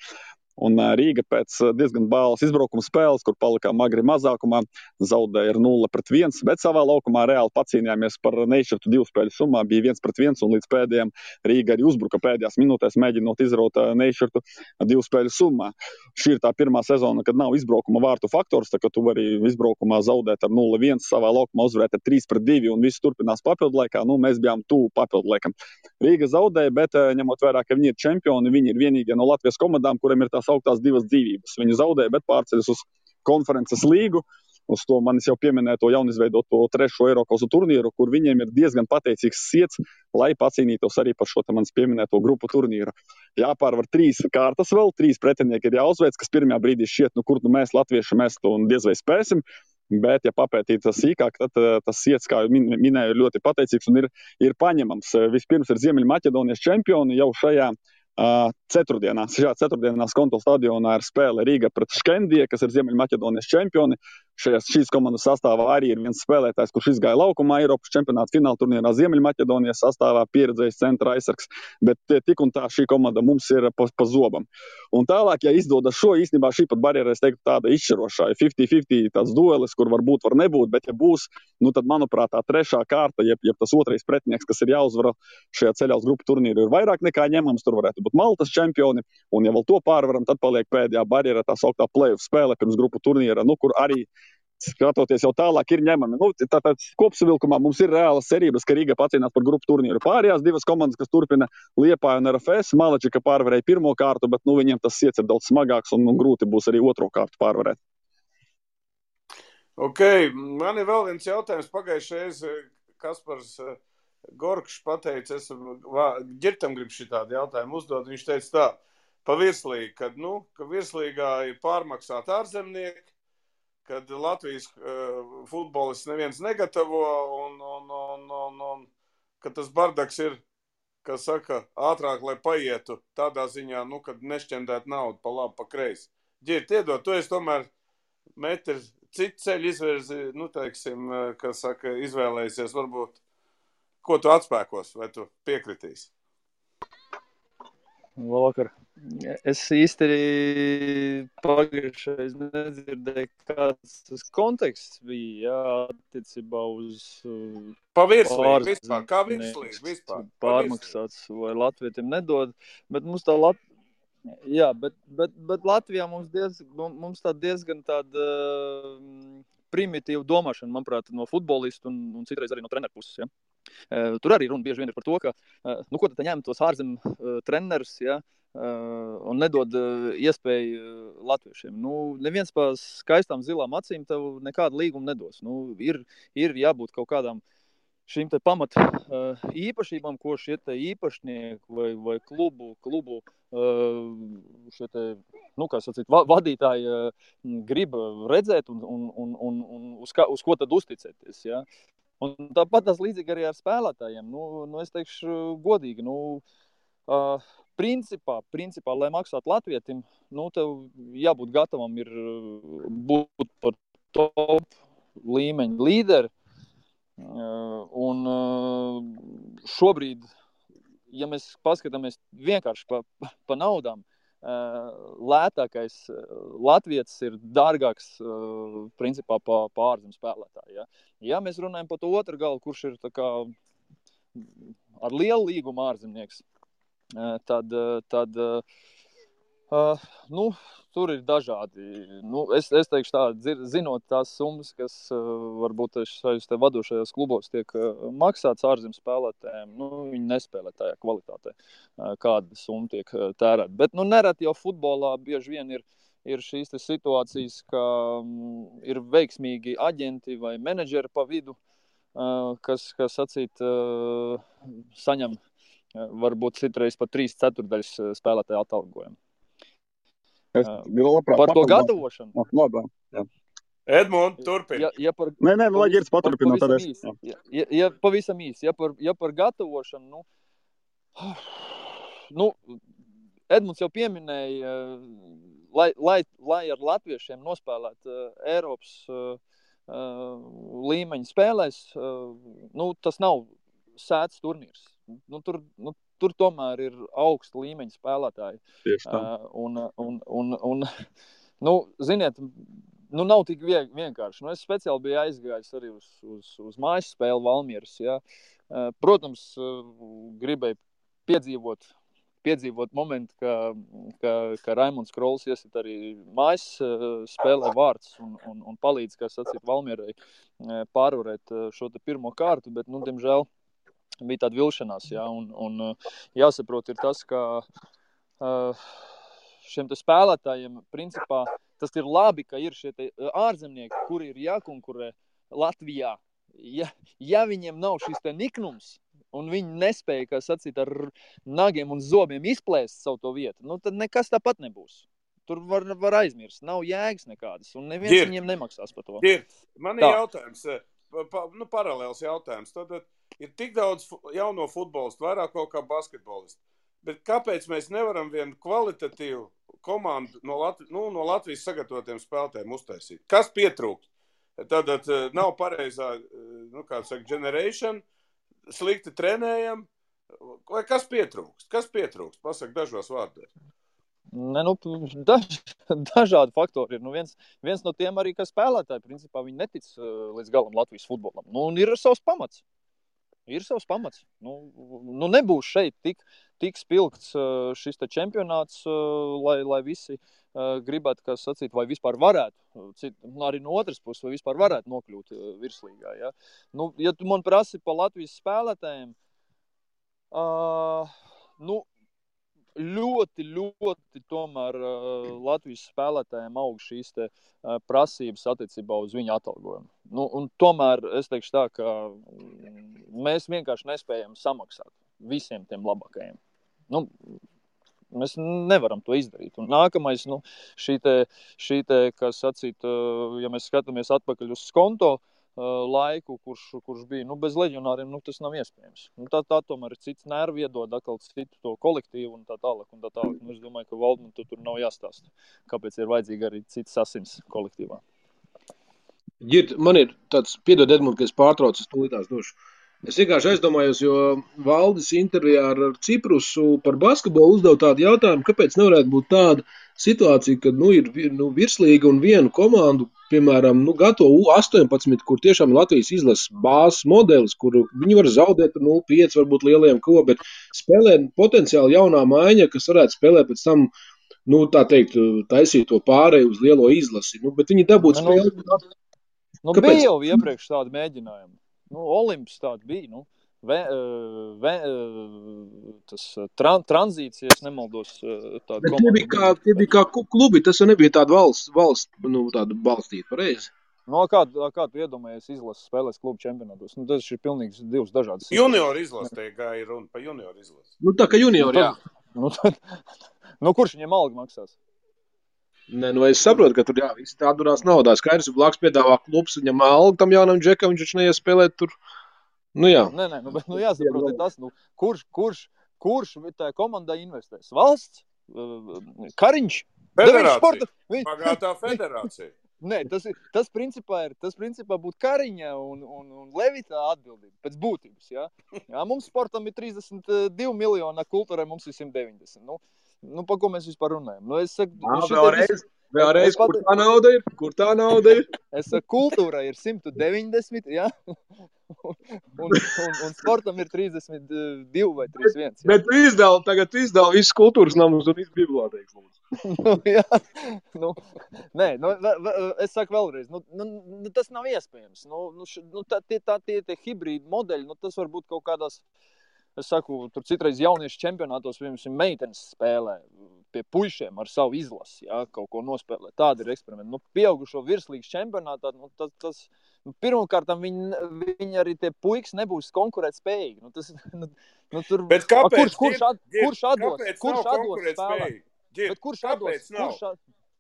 Un Rīga pēc diezgan bālas izbraukuma spēles, kur palikām agri mazākumā, zaudēja ar 0-1, bet savā laukumā reāli pacīnījāmies par nešķirtu 2 spēļu summā, bija 1-1, un līdz pēdējiem Rīga arī uzbruka pēdējās minūtēs, mēģinot izraut nešķirtu 2 spēļu summā. Šī ir tā pirmā sezona, kad nav izbraukuma vārtu faktors, tā ka tu vari izbraukumā zaudēt ar 0-1, savā laukumā uzvarēt ar 3-2, un viss turpinās papildu laikā. Mēs bijām tuvu papildu laikam. Rīga zaudēja, bet ņemot vērā, ka viņi ir čempioni, viņi ir vienīgie no Latvijas komandām, kuriem ir tās augtās 2 dzīvības. Viņi zaudēja, bet pārceļas uz konferences līgu, uz to manis jau pieminēto jaunizveidoto 3. Eirokausu turnīru, kur viņiem ir diezgan pateicīgs siets, lai pacīnītos arī par šo manis pieminēto grupu turnīru. Jāpārvar 3 kārtas vēl, 3 pretinieki ir jāuzveic, kas pirmajā brīdī šķiet, kur mēs latvieši mēs to diez vai spēsim. Bet, ja papētīt sīkāk, tad tas siets, kā minēju, ir ļoti pateicīgs un ir paņemams. Vispirms ir Ziemeļmaķedonijas čempioni jau šajā ceturtdienās. Šajā ceturtdienās Konto stadionā ir spēle Rīga pret Škendie, kas ir Ziemeļmaķedonijas čempioni. Šīs komandas sastāvā arī ir viens spēlētājs, kurš izgāja laukumā Eiropas čempionāta fināla turnīrā Ziemeļmaķedonijas sastāvā, pieredzējis centra aizsargs. Bet tik un tā šī komanda mums ir pa zobam. Un tālāk, ja izdodas šo, īstenībā šī pat barjera, es teiktu, tāda izšķirošā, 50-50 tāds duelis, kur var būt, var nebūt, bet ja būs, tad, manuprāt, tā 3. kārta, jeb tas 2. pretinieks, kas ir jāuzvara šajā ceļā uz grupu turnīru, ir vairāk nekā ņemams. Tur varētu būt Maltas čempioni, un ja vēl to pārvaram, tad paliek pēdējā barjera, tā sauktā play-off spēle pirms grupu turnīra, kur arī skatoties jau tālāk ir ņemami. Tātad kopsavilkumā mums ir reālas cerības, ka Rīga pacīnās par grupu turnīru. Pārējās 2 komandas, kas turpina Liepāja un RFS, Malačika pārvarēja 1. kārtu, bet viņiem tas siets ir daudz smagāks un grūti būs arī 2. kārtu pārvarēt. Ok, man ir vēl viens jautājums. Pagājušais Kaspars Gorkšs pateica, es Ģirtam gribu šitādu jautājumu uzdot. Viņš teica tā, pa virslīgi, ka virslīgā ir pārmaksāt ārzemnieki, kad Latvijas futbolists neviens negatavo un ka tas bardaks ir, kas saka, ātrāk, lai paietu tādā ziņā, kad nešķendēt naudu pa labi, pa kreisi. Ģirt, iedod, tu esi tomēr metrs citu ceļu izvirzi, teiksim, kas saka, izvēlējusies, varbūt, ko tu atspēkos, vai tu piekritīsi? Labvakar. Es īsti pagājušais nedzirdēju, kāds tas konteksts bija, attiecībā uz pa virslīgi, vispār, kā virslīgi, vispār. Pārmaksāts vai latvietiem nedod, bet mums tā bet Latvijā mums tā diezgan tāda primitīva domāšana, manuprāt, no futbolistu un citreiz arī no treneru puses, ja. Tur arī runa bieži vien ir par to, ka, ko tad ņem tos ārzem trenerus, ja, un nedod iespēju latviešiem. Neviens pa skaistām zilām acīm tev nekādu līgumu nedos. Ir jābūt kaut kādām šīm te pamat īpašībām, ko šie te īpašnieki vai klubu šie te, kā sacīt, vadītāji grib redzēt un uz ko tad uzticēties, ja. Un tāpat tas līdzīgi arī ar spēlētājiem. Es teikšu godīgi, principā, lai maksātu latvietim, tev jābūt gatavam ir būt par top līmeņa līderi. Un šobrīd, ja mēs paskatāmies vienkārši pa naudām, lētākais latvietis ir dārgāks principā pa ārzem spēlētāju. Ja? Ja mēs runājam par to otru galu, kurš ir tā kā ar lielu līgumu ārzemnieks, tad tur ir dažādi. Es teikšu tā, zinot tās summas, kas varbūt šajos te vadošajos klubos tiek maksāts ārzem spēlētājiem, viņi nespēlē tajā kvalitātē, kāda summa tiek tērēta. Bet nereti jau futbolā bieži vien ir ir šīs situācijas, ka ir veiksmīgi aģenti vai menedžeri pa vidu, kas sacīt, saņem varbūt citreiz pat 3/4 spēlētāju atalgojumu. Par to gatavošanu. Labā, jā. Edmund, turpini. Nē, lai Girds paturpina. Pavisam īsi. Ja par gatavošanu, Edmunds jau pieminēja, lai ar latviešiem nospēlēt Eiropas līmeņa spēlēs, tas nav sēts turnīrs. Tur tomēr ir augsta līmeņa spēlētāji. Tieši tā. Ziniet, nav tik vienkārši. Es speciāli biju aizgājis arī uz mājas spēli Valmieras. Ja. Protams, gribēju piedzīvot momentu, ka Raimunds Krols iesit arī mājas spēlē vārds un palīdz, kā sacīt, Valmierai pārvarēt šo te pirmo kārtu, bet, diemžēl, bija tāda vilšanās, ja, un jāsaprot ir tas, ka šiem te spēlētājiem, principā, tas ir labi, ka ir šie te ārzemnieki, kuri ir jākonkurē Latvijā. Ja viņiem nav šis te niknums, un viņi nespēja, kā sacīt, ar nagiem un zobiem izplēst savu to vietu, tad nekas tāpat nebūs. Tur var aizmirst, nav jēgas nekādas, un neviens viņiem nemaksās par to. Man ir jautājums, paralēls jautājums. Tad ir tik daudz jauno futbolistu, vairāk kaut kā basketbolistu. Bet kāpēc mēs nevaram vienu kvalitatīvu komandu no Latvijas sagatavotiem spēlētājiem uztaisīt? Kas pietrūkst? Tad nav pareizā, generation, slikti trenējam. Vai kas pietrūkst? Pasaka dažos vārdos. Dažādi faktori ir. Viens no tiem arī, ka spēlētāji, principā, viņi netic līdz galam Latvijas futbolam. Un ir savs pamats. Nebūs šeit tik spilgts šis te čempionāts, lai visi gribētu, kā sacīt, vai vispār varētu, arī no otras puses, vai vispār varētu nokļūt virslīgā. Ja, ja tu man prasi pa Latvijas spēlētājiem, ļoti tomēr Latvijas spēlētājiem aug šīs te prasības attiecībā uz viņu atalgojumu. Un tomēr es teikšu tā, ka mēs vienkārši nespējam samaksāt visiem tiem labākajiem. Mēs nevaram to izdarīt. Un nākamais, šī te, kā sacīt, ja mēs skatāmies atpakaļ uz Skonto laiku, kurš bija, bez leģionāriem, tas nav iespējams. Tā tomēr ir cits nervi iedod, atkal citu to kolektīvu un tā tālāk. Es domāju, ka Valdman tur nav jāstāsta, kāpēc ir vajadzīgi arī cits asins kolektīvā. Girt, man ir tāds, piedod Edmund, ka es pārtraucu, es tūlītās došu. Es vienkārši aizdomājos, jo Valdis intervijā ar Ciprusu par basketbolu uzdev tādu jautājumu, kāpēc nevarētu būt tāda situācija, kad ir virslīga un vienu komandu, piemēram, gatavo U18, kur tiešām Latvijas izlases bāzes modelis, kur viņi var zaudēt 0-5, varbūt lielajiem bet spēlē potenciāli jaunā maiņa, kas varētu spēlēt pēc tam, tā teikt, taisīt to pārēju uz lielo izlasi. Bet viņi dabūt spēli. Bija jau iepriekš tādi mēģinājumi. Olimps tāda bija, tas tranzīts, ja es nemaldos, tāda komanda. Tie bija kā klubi, tas jau nebija tāda valsts tāda balstīta, pareizi? Kā tu iedomājies izlases spēlēs klubu čempionātos? Tas ir pilnīgi divas dažādas. Junior izlase, te gāja runa pa junior izlase. Tā kā junior, jā. Kurš viņiem algu maksās? Es saprotu, ka tur visi tā durās naudā. Skaidrs, ja blāks piedāvā klubs, viņam algu tam jaunam džekam, viņš neies spēlēt tur. Jā. Bet jāsaprot ir tas, kurš tā komandā investēs? Valsts? Kariņš? Federācija. Pagātā federācija. Nē, tas principā būtu Kariņa un Levita atbildība pēc būtības. Ja? Mums sportam ir 32 miljoni, kultūrai mums ir 190. Pa ko mēs vispār runājam? Es saku, vēlreiz, kur tā nauda ir? Es saku, kultūrai ir 190, ja? un sportam ir 32 vai 31. Ja? Bet tagad izdala visas kultūras namus un visas bibliotēkas. Es saku vēlreiz, tas nav iespējams. Tie hibrīdi modeļi, tas var būt kaut kādās, es saku, tur citreiz jauniešu čempionātos, piemēram, meitenes spēlē. pie puišiem ar savu izlasi, ja, kaut ko nospēlēt. Tāda ir eksperimenta. Pieaugušo virslīgas čempionātā, tas pirmkārt, viņi arī tie puikas nebūs konkurēt spējīgi. Tur, Bet kāpēc? Kurš atdos spēlēt? Bet kurš atdos?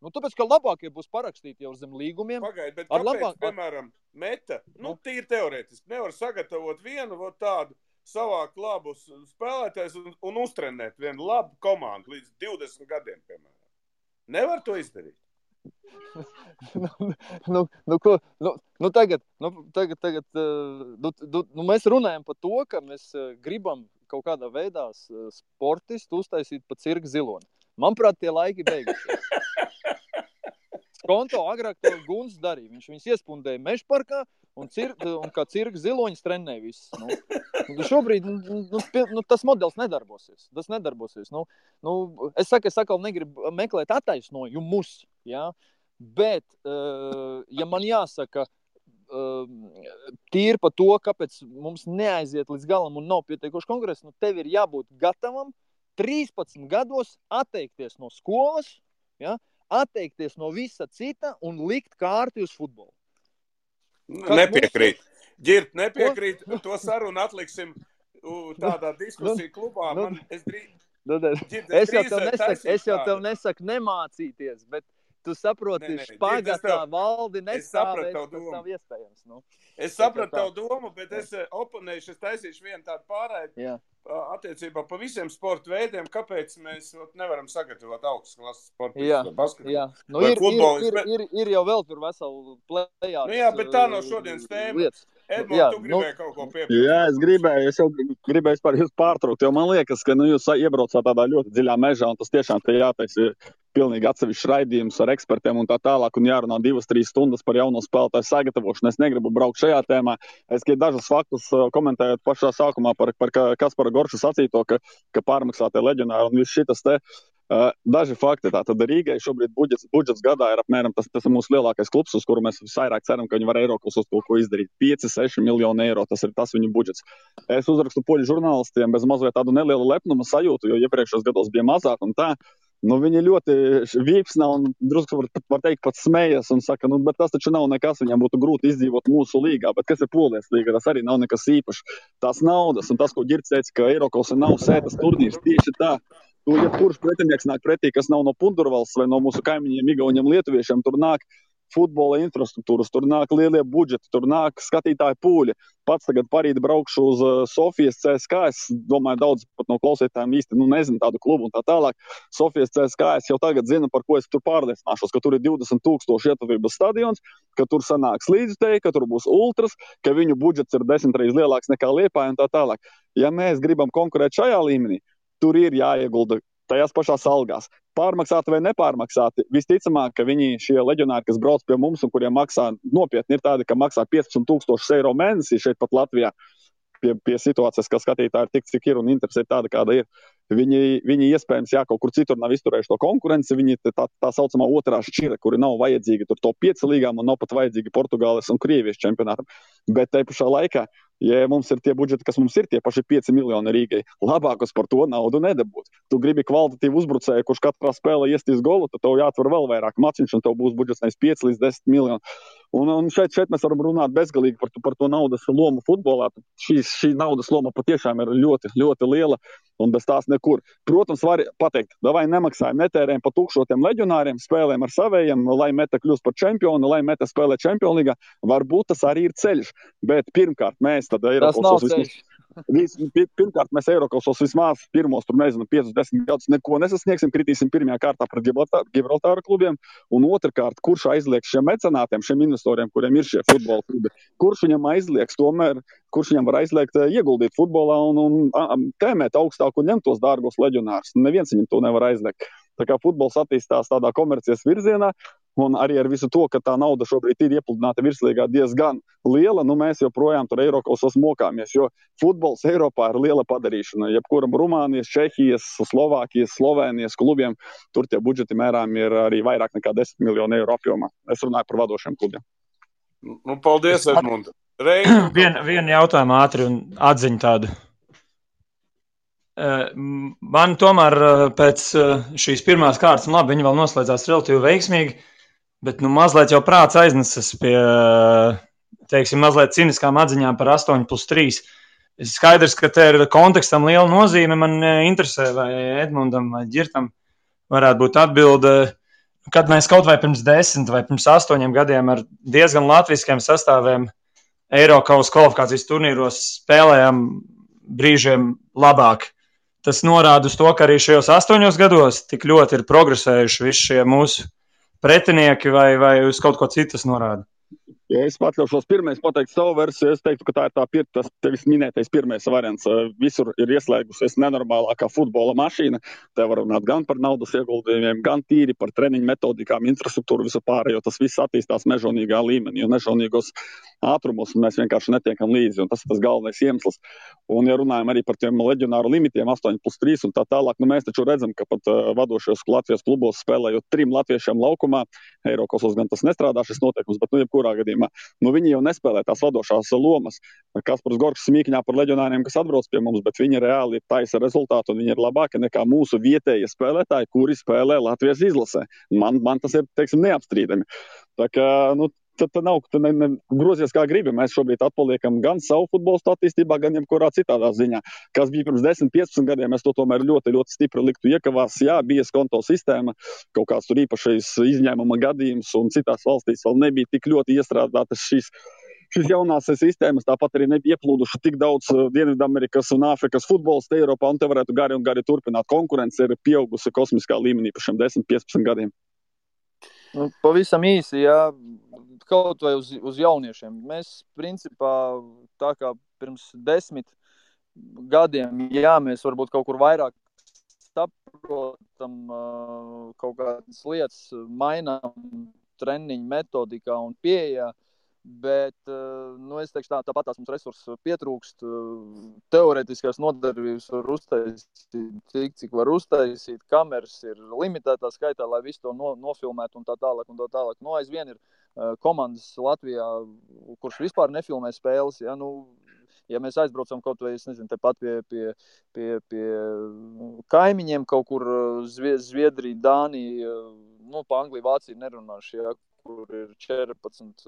Tāpēc, ka labākie būs parakstīti jau zem līgumiem. Pagaid, bet kāpēc, piemēram, Meta, tīri teorētiski, nevar sagatavot vienu tādu savākt labus spēlētājus un uztrenēt vienu labu komandu līdz 20 gadiem, piemēram. Nevar to izdarīt. Tagad mēs runājam par to, ka mēs gribam kaut kādā veidā sportistu uztaisīt pa cirka ziloni. Manuprāt, tie laiki beigušies. Skonto agrāk to Guns darīja. Viņš viņus iespundēja Mežparkā un kā cirka ziloņas trenēja visus. Šobrīd tas modelis nedarbosies. Tas nedarbosies. Es atkal negribu meklēt attaisnojumus, ja? Bet, ja man jāsaka tīri par to, kāpēc mums neaiziet līdz galam un nav pietiekoši kongress, tev ir jābūt gatavam 13 gados atteikties no skolas, ja? Atteikties no visa cita un likt kārti uz futbolu. Nepiekrīt. Ģirt, nepiekrīt. To sarunu atliksim tādā diskusiju klubā. Es jau tev nesaku nemācīties, bet tu saproti, špagatā valdi nestāvēs, tas nav iespējams. Es sapratu tavu domu, bet es oponēšu, es taisīšu vienu tādu pārēju attiecībā pa visiem sporta veidiem, kāpēc mēs nevaram sagatavot augstas klases sportistus vai basketbolu. Ir jau vēl tur veselu plējās. Jā, bet tā nav šodienas tēma. Edmund, tu gribēji kaut ko piebilst? Jā, es gribēju jūs pārtraukt, jo man liekas, ka jūs iebraucāt tādā ļoti dziļā mežā, un tas tiešām te jātaisa pilnīgi atsevišķs raidījums ar ekspertiem un tā tālāk, un jārunā 2-3 stundas par jauno spēlētāju sagatavošanu. Es negribu braukt šajā tēmā. Es dažus faktus komentējot pašā sākumā par Kaspara Gorša sacīto, ka pārmaksātie leģionāri un viss šitas te. Daži fakti. Tātad Rīgai šobrīd budžets gadā ir apmēram, tas ir mūsu lielākais klubs, uz kuru mēs visvairāk ceram, ka viņi var Eiropas uz to, ko izdarīt. 5-6 miljoni eiro, tas ir tas viņu budžets. Es uzrakstu poļu žurnālistiem bez mazliet tādu nelielu lepnuma sajūtu, jo iepriekšējos gados bija mazāk un tā. Viņi ļoti vīpsnā un drusku var teikt pat smējas un saka, bet tas taču nav nekas, viņam būtu grūti izdzīvot mūsu līgā, bet kas ir Polijas līga, tas arī nav nekas īpašs. Tās naudas un tas, ko Ģirds teica, ka Eiropas nav sētas turnīrs, tieši tā. Ja kurš pretinieks nāk pretī, kas nav no Pundurvalsts vai no mūsu kaimiņiem, Igauņiem, Lietuviešiem, tur nāk futbola infrastruktūras, tur nāk lielie budžeti, tur nāk skatītāji pūļi. Pats tagad parīt braukšu uz Sofijas CSKA, es domāju, daudz pat no klausītājiem īsti nezinu tādu klubu un tā tālāk. Sofijas CSKA es jau tagad zinu, par ko es tur pārliecināšos, ka tur ir 20,000 ietuvības stadions, ka tur sanāks līdzutēji, ka tur būs ultras, ka viņu budžets ir 10 reizes lielāks nekā Liepāja un tā tālāk. Ja mēs gribam konkurēt šajā līmenī, tur ir jāiegulda tajās pašās algās. Pārmaksāti vai nepārmaksāti, visticamāk, ka šie leģionāri, kas brauc pie mums un kuriem maksā nopietni, ir tādi, ka maksā 15,000 eiro mēnesī šeit pat Latvijā. Pie situācijas, ka skatītāji ir tik, cik ir un interesi ir tāda, kāda ir. Viņi iespējams, kaut kur citur nav izturējuši to konkurenci, viņi tā saucamā otrā šķira, kuri nav vajadzīgi tur top 5 līgām un nav pat vajadzīgi Portugāles un Krievijas čempionātam. Bet te pašā laikā, ja mums ir tie budžeti, kas mums ir, tie paši 5 miljoni Rīgai, labākos par to naudu nedabūt. Tu gribi kvalitatīvu uzbrucēju, kurš katrā spēlē iestīs golu, tad tev jāatver vēl vairāk maciņš un tev būs budžets nevis 5 līdz 10 miljoni. Un šeit mēs varam runāt bezgalīgi par to naudas lomu futbolā. Šī naudas loma patiešām ir ļoti, ļoti liela un bez tās nekur. Protams, var pateikt, davai nemaksājam, netērējam pa tukšotiem leģionāriem, spēlēm ar savējiem, lai Meta kļūst par čempionu, lai Meta spēlē Čempionlīgā. Varbūt tas arī ir ceļš, bet pirmkārt mēs tad Pirmkārt, mēs Eirokasos vismaz pirmos, 5-10 gadus neko nesasniegsim, kritīsim pirmajā kārtā pret Gibraltāra klubiem, un otrkārt, kurš aizlieks šiem mecenātiem, šiem investoriem, kuriem ir šie futbola klubi, kurš viņam aizlieks tomēr, kurš viņam var aizliegt ieguldīt futbolā un tēmēt augstāk un ņemt tos dārgos leģionārus. Neviens viņam to nevar aizliegt. Tā kā futbols attīstās tādā komercijas virzienā, un arī ar visu to, ka tā nauda šobrīd ir iepludināta virslīgā diezgan liela, mēs joprojām tur Eirokasos mokāmies, jo futbols Eiropā ir liela padarīšana. Jebkuram Rumānijas, Čehijas, Slovākijas, Slovēnijas klubiem, tur tie budžeti mērām ir arī vairāk nekā 10 miljonu eiro apjomā. Es runāju par vadošiem klubiem. Paldies, Edmund. Vienu jautājumu ātri un atziņu tādu. Man tomēr pēc šīs pirmās kārtas, labi, viņi vēl noslēdzās relatīvi veiksmīgi, bet mazliet jau prāts aiznesas pie, teiksim, mazliet ciniskām atziņām par 8+3. Skaidrs, ka te ir kontekstam liela nozīme. Man interesē, vai Edmundam vai Ģirtam varētu būt atbilde, kad mēs kaut vai pirms 10 vai pirms 8 gadiem ar diezgan latviskiem sastāviem Eirokaus kvalifikācijas turnīros spēlējām brīžiem labāk. Tas norāda uz to, ka arī šajos 8 gados tik ļoti ir progresējuši visi šie mūsu pretinieki, vai uz kaut ko citu norāda. Ja es atļaušos pirmais pateikt savu versiju, es teiktu, ka tā ir tas tevis minētais pirmais variants. Visur ir ieslēgusies nenormālākā futbola mašīna. Te var runāt gan par naudas ieguldījumiem, gan tīri par treniņu metodikām, infrastruktūru, visu pārējo. Tas viss attīstās mežonīgā līmenī, un mežonīgos ātrumos mēs vienkārši netiekam līdzi, un tas ir tas galvenais iemesls. Un, ja runājam arī par tiem leģionāru limitiem, 8+3 un tā tālāk, mēs taču redzam, ka pat vadošajos Latvijas klubos spēlējot 3 latviešiem laukumā, Eirokasos gan tas nestrādā šis noteikums, bet jebkurā gadījumā, viņi jau nespēlē tās vadošās lomas. Kaspars Gorgs smīkņā par leģionāriem, kas atbrauc pie mums, bet viņi reāli taisa rezultātu, un viņi ir labāki nekā mūsu vietējie spēlētāji, kuri spēlē Latvijas izlasē. Man tas ir, teiksim, neapstrīdami. Tā kā, tad nav grozies kā gribi. Mēs šobrīd atpaliekam gan savu futbolu attīstībā, gan jebkurā citādā ziņā. Kas bija pirms 10-15 gadiem, mēs to tomēr ļoti, ļoti stipri liktu iekavās. Jā, bija konto sistēma, kaut kāds tur īpašais izņēmuma gadījums, un citās valstīs vēl nebija tik ļoti iestrādātas šīs jaunās sistēmas, tāpat arī nebija ieplūduši tik daudz Dienvidamerikas un Āfrikas futbolistu Eiropā, un te varētu gari un gari turpināt. Konkurence ir pieaugusi kosmiskā līmenī par šiem 10-15 gadiem. Pavisam īsi, jā, kaut vai uz jauniešiem. Mēs, principā, tā kā pirms 10 gadiem, jā, mēs varbūt kaut kur vairāk saprotam kaut kādas lietas, mainām treniņu metodikā un pieejā, bet, es teikšu tāpat tās mums resursus pietrūkst, teorētiskās nodarbības var uztaisīt, cik var uztaisīt, kameras ir limitētā skaitā, lai visu to nofilmētu un tā tālāk. Aizvien ir komandas Latvijā, kurš vispār nefilmē spēles, ja mēs aizbraucam kaut vai, tepat pie kaimiņiem kaut kur Zviedrija, Dānija, pa Angliju, Vāciju nerunāšu, kur ir 14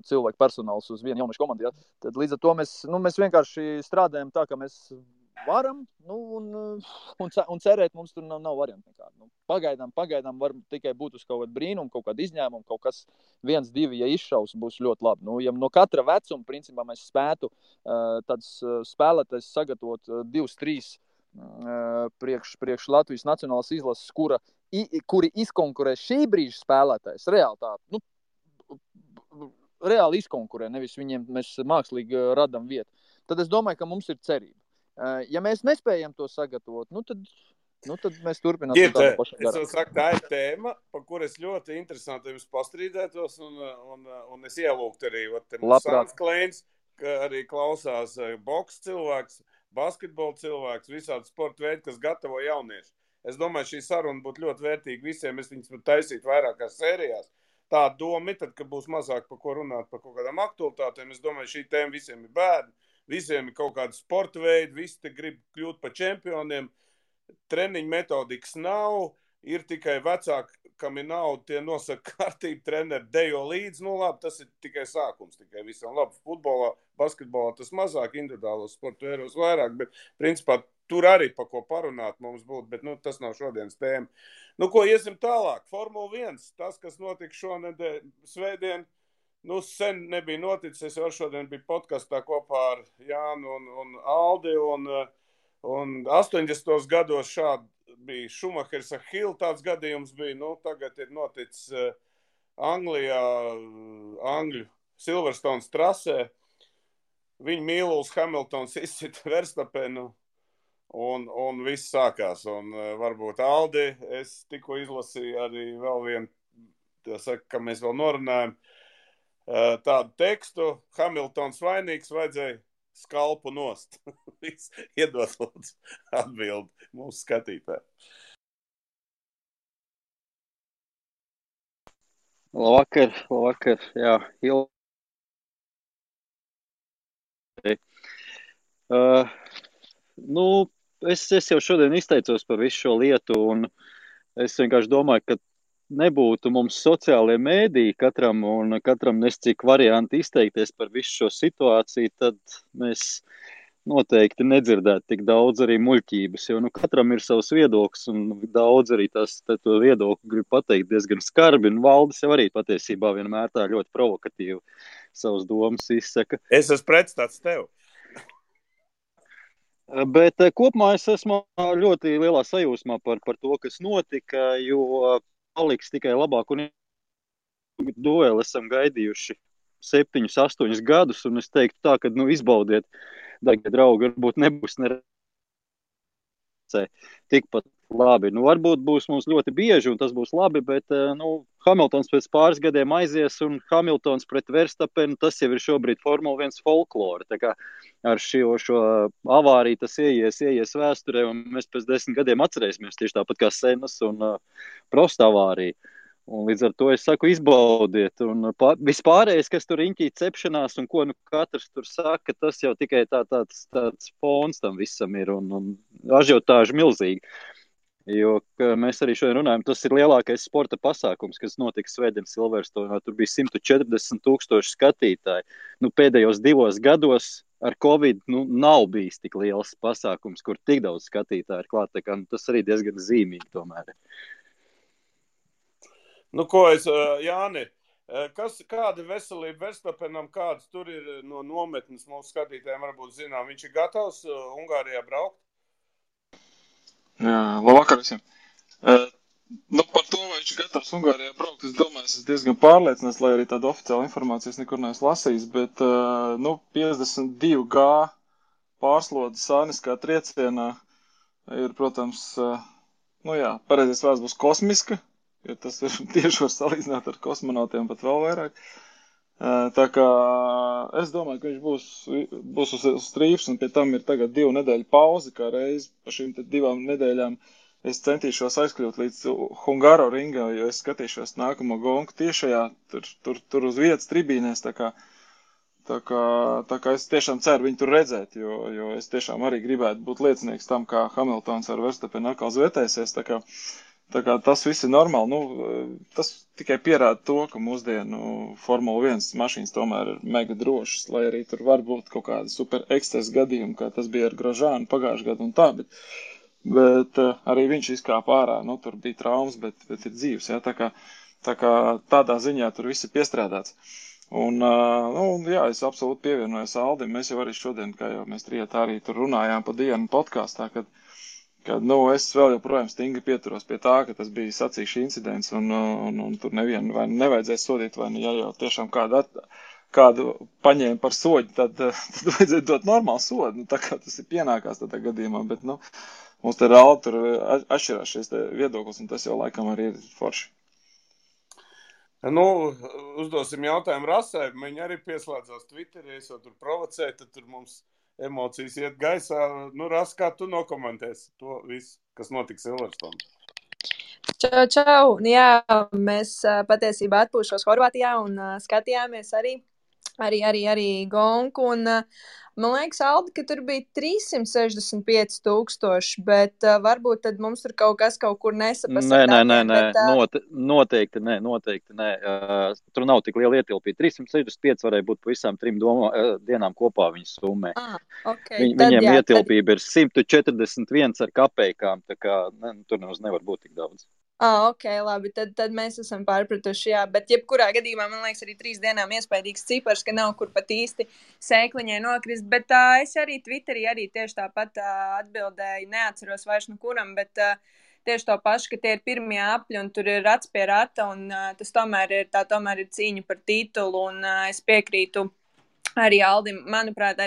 cilvēku personāls uz vienu jauniešu komandu. Tad līdz ar to mēs vienkārši strādājam tā, ka mēs varam, un cerēt mums tur nav variantu nekādu. Pagaidām var tikai būt uz kaut kādu brīnumu, kaut kādu izņēmumu, kaut kas 1-2, ja izšaus, būs ļoti labi. Ja no katra vecuma, principā, mēs spētu tāds spēlētājs sagatavot 2-3 priekš Latvijas nacionālās izlases, kuri izkonkurē šī brīža spēlētājs, reāli izkonkurē, nevis viņiem mēs mākslīgi radam vietu. Tad es domāju, ka mums ir cerība. Ja mēs nespējam to sagatavot, tad mēs turpināsim tādu pašu darbu. Es saku, tā ir tēma, par kur es ļoti interesanti jums pastrīdētos, un es ielūgtu arī Sāns Kleins, ka arī klausās boks cilvēks, basketbola cilvēks, visādi sporta veidi, kas gatavo jaunieši. Es domāju, šī saruna būtu ļoti vērtīga visiem, es viņas var taisīt vairākās sērijās. Tā doma, tad, ka būs mazāk par ko runāt, par kaut kādām aktualitātēm, es domāju, šī tēma visiem ir bērni, visiem ir kaut kādi sporta veidi, visi te grib kļūt par čempioniem, treniņu metodikas nav, ir tikai vecāki, kam ir nauda, tie nosaka kārtību, treneri dejo līdzi, labi, tas ir tikai sākums, tikai visam labi. Futbolā, basketbolā tas mazāk, individuālos sporta veidos vairāk, bet principā tur arī pa ko parunāt mums būtu, bet tas nav šodienas tēma. Ko iesim tālāk? Formula 1, tas, kas notika šonedēļ svētdien, sen nebija noticis, es jau šodien biju podkastā kopā ar Jānu un Aldi, un 80. gados šādi bija Šumahers ar Hillu, tāds gadījums bija, tagad ir noticis Anglijā, Angļu Silverstones trasē, viņa Mīluls Hamiltons izsita Verstapenu, un viss sākās, un varbūt Aldi, es tikko izlasīju arī vēl vienu, ka mēs vēl norunājam, tādu tekstu, Hamiltons vainīgs, vajadzēja skalpu nost. Iedod lūdzu atbildi mūsu skatītāji. Labvakar, jā, es jau šodien izteicos par visu šo lietu, un es vienkārši domāju, ka nebūtu mums sociālie mēdīji katram nes cik varianti izteikties par visu šo situāciju, tad mēs noteikti nedzirdētu tik daudz arī muļķības, jo katram ir savs viedoklis, un daudz arī to viedokli grib pateikt diezgan skarbi, un Valdis jau arī patiesībā vienmēr tā ļoti provokatīvi savas domas izsaka. Es esmu pretstats tev. Bet kopumā es esmu ļoti lielā sajūsmā par to, kas notika, jo paliks tikai labāk, un dueli esam gaidījuši 7, 8 gadus, un es teiktu tā, ka izbaudiet, dārgie draugi, varbūt nebūs tikpat labi. Varbūt būs mums ļoti bieži, un tas būs labi, bet Hamiltons pēc pāris gadiem aizies, un Hamiltons pret Verstapenu, tas jau ir šobrīd Formula 1 folklore. Tā kā ar šo avāriju tas ieies vēsturē, un mēs pēc 10 gadiem atcerēsimies tieši tāpat kā Senas un Prosta avārija. Un līdz ar to es saku, izbaudiet. Un vispārējais, kas tur riņķī cepšanās un ko katrs tur saka, tas jau tikai tāds fons tam visam ir un ažiotāži milzīgi. Jo mēs arī šodien runājam, tas ir lielākais sporta pasākums, kas notika svētdien Silverstonā. Tur bija 140,000 skatītāji. Pēdējos 2 gados ar Covid nav bijis tik liels pasākums, kur tik daudz skatītāji ir klāt. Tas arī diezgan zīmīgi tomēr. Jāni, kāda veselība Verstapenam, kāds tur ir no nometnes mūsu skatītājiem varbūt zinām? Viņš ir gatavs Ungārijā braukt? Jā, labvakar visiem. Par to, vai viņš ir gatavs Ungārijā braukt, es domāju, es diezgan pārliecināts, lai arī tādu oficiālu informāciju es nekur neesmu lasījis, bet 52G pārslode sāniskā triecienā ir, protams, pareizais vārds būs kosmiska, jo tas ir tieši var salīdzināt ar kosmonautiem pat vēl vairāk. Tā kā es domāju, ka viņš būs uz strīfs, un pie tam ir tagad 2 nedēļu pauze, kā reiz pa šīm 2 nedēļām es centīšos aizkļūt līdz Hungaro ringā, jo es skatīšos nākamo gonku tiešajā, tur uz vietas tribīnēs, tā kā es tiešām ceru viņu tur redzēt, jo es tiešām arī gribētu būt liecinieks tam, kā Hamiltons ar Verstapenu atkal zvērtēsies, tā kā tas viss ir normāli. Tas tikai pierāda to, ka mūsdienu Formula 1 mašīnas tomēr ir mega drošas, lai arī tur var būt kaut kāda super ekscesa gadījuma, kā tas bija ar Grosjeanu pagājušajā gadu un tā, bet arī viņš izkāpa ārā. Tur bija traumas, bet ir dzīves. Ja? Tā kā tādā ziņā tur viss ir piestrādāts. Un, es absolūti pievienojos Aldim. Mēs jau arī šodien, kā jau mēs trijotā arī tur runājām pa dienu podkāstā, kad es vēl joprojām stingri pieturos pie tā, ka tas bija sacīkšu incidents un tur nevienu vai nevajadzēs sodīt, vai ja jau tiešām kādu paņēma par soļu, tad vajadzētu dot normālu sodu, tā kā tas ir pienākās tādā gadījumā, bet mums te reāli tur atšķirās šis viedoklis, un tas jau laikam arī ir forši. Uzdosim jautājumu Rasai, viņi arī pieslēdzās Twitterī, es jau tur provocēju, tad tur mums emocijas iet gaisā. Ras, kā tu nokomentēsi to visu, kas notika Silverstone? Čau! Jā, mēs patiesībā atpūšos Horvātijā un skatījāmies arī gonku. Un, man liekas, Aldi, ka tur bija 365,000, bet varbūt tad mums tur kaut kur nesapasa. Nē, noteikti nē. Tur nav tik liela ietilpība. 365 varēja būt pa visām 3 dienām kopā viņas summē. Okay. Viņiem ietilpība ir 141 ar kapeikām, tā kā tur nevar būt tik daudz. Ok, labi, tad mēs esam pārpratuši, jā, bet jebkurā gadījumā, man liekas, arī 3 dienām iespējīgs cipars, ka nav kur pat īsti sēkliņai nokrist, bet es arī Twitterī tieši tāpat atbildēju, neatceros vairs no kuram, bet tieši to pašu, ka tie ir pirmie apļi un tur ir rats pie rata un tas tomēr ir cīņa par titulu un es piekrītu arī Aldim, manuprāt,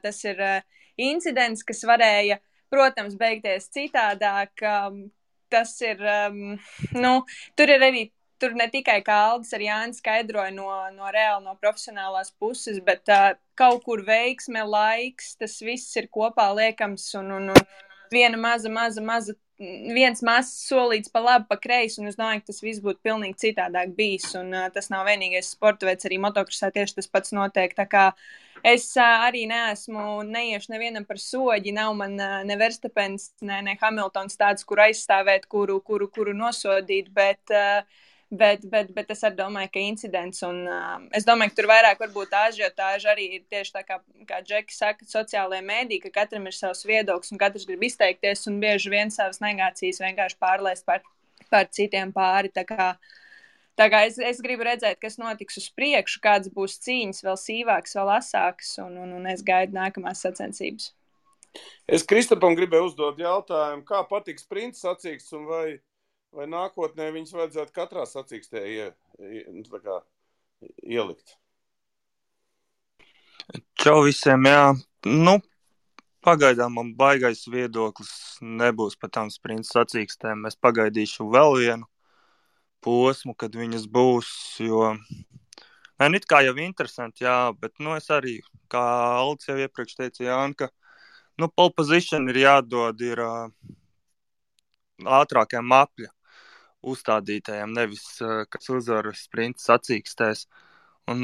tas ir incidents, kas varēja, protams, beigties citādāk. Tas ir, tur ne tikai kā Aldis ar Jāni skaidroja no profesionālās puses, bet kaut kur veiksme, laiks, tas viss ir kopā liekams un viena viens mazs solīts pa labi, pa kreisi, un es domāju, ka tas viss būtu pilnīgi citādāk bijis, un tas nav vienīgais sporta veids, arī motokrosā tieši tas pats notiek, tā kā Es arī neiešu nevienam par soģi, nav man ne Verstapens, ne Hamiltons tāds, kur aizstāvēt, kuru nosodīt, bet es arī domāju, ka incidents, un es domāju, ka tur vairāk varbūt ažiotāža arī ir tieši tā, kā Džeki saka, sociālajā mēdī, ka katram ir savs viedoklis, un katrs grib izteikties, un bieži vien savas negācijas vienkārši pārlaist par citiem pāri, Tā kā es gribu redzēt, kas notiks uz priekšu, kāds būs cīņas, vēl sīvāks, vēl asāks, un es gaidu nākamās sacensības. Es Kristapam gribēju uzdot jautājumu, kā patīk sprinta sacīksts, un vai nākotnē viņas vajadzētu katrā sacīkstē ielikt? Čau visiem, jā. Nu, pagaidām man baigais viedoklis nebūs par tām sprinta sacīkstēm. Es pagaidīšu vēl vienu posmu, kad viņas būs, jo it kā jau interesanti, jā, bet es arī, kā Aldis jau iepriekš teica, Jāni, ka pole position ir jādod ātrākajam apļa uzstādītājiem, nevis, kas uzvar sprinta sacīkstēs. Un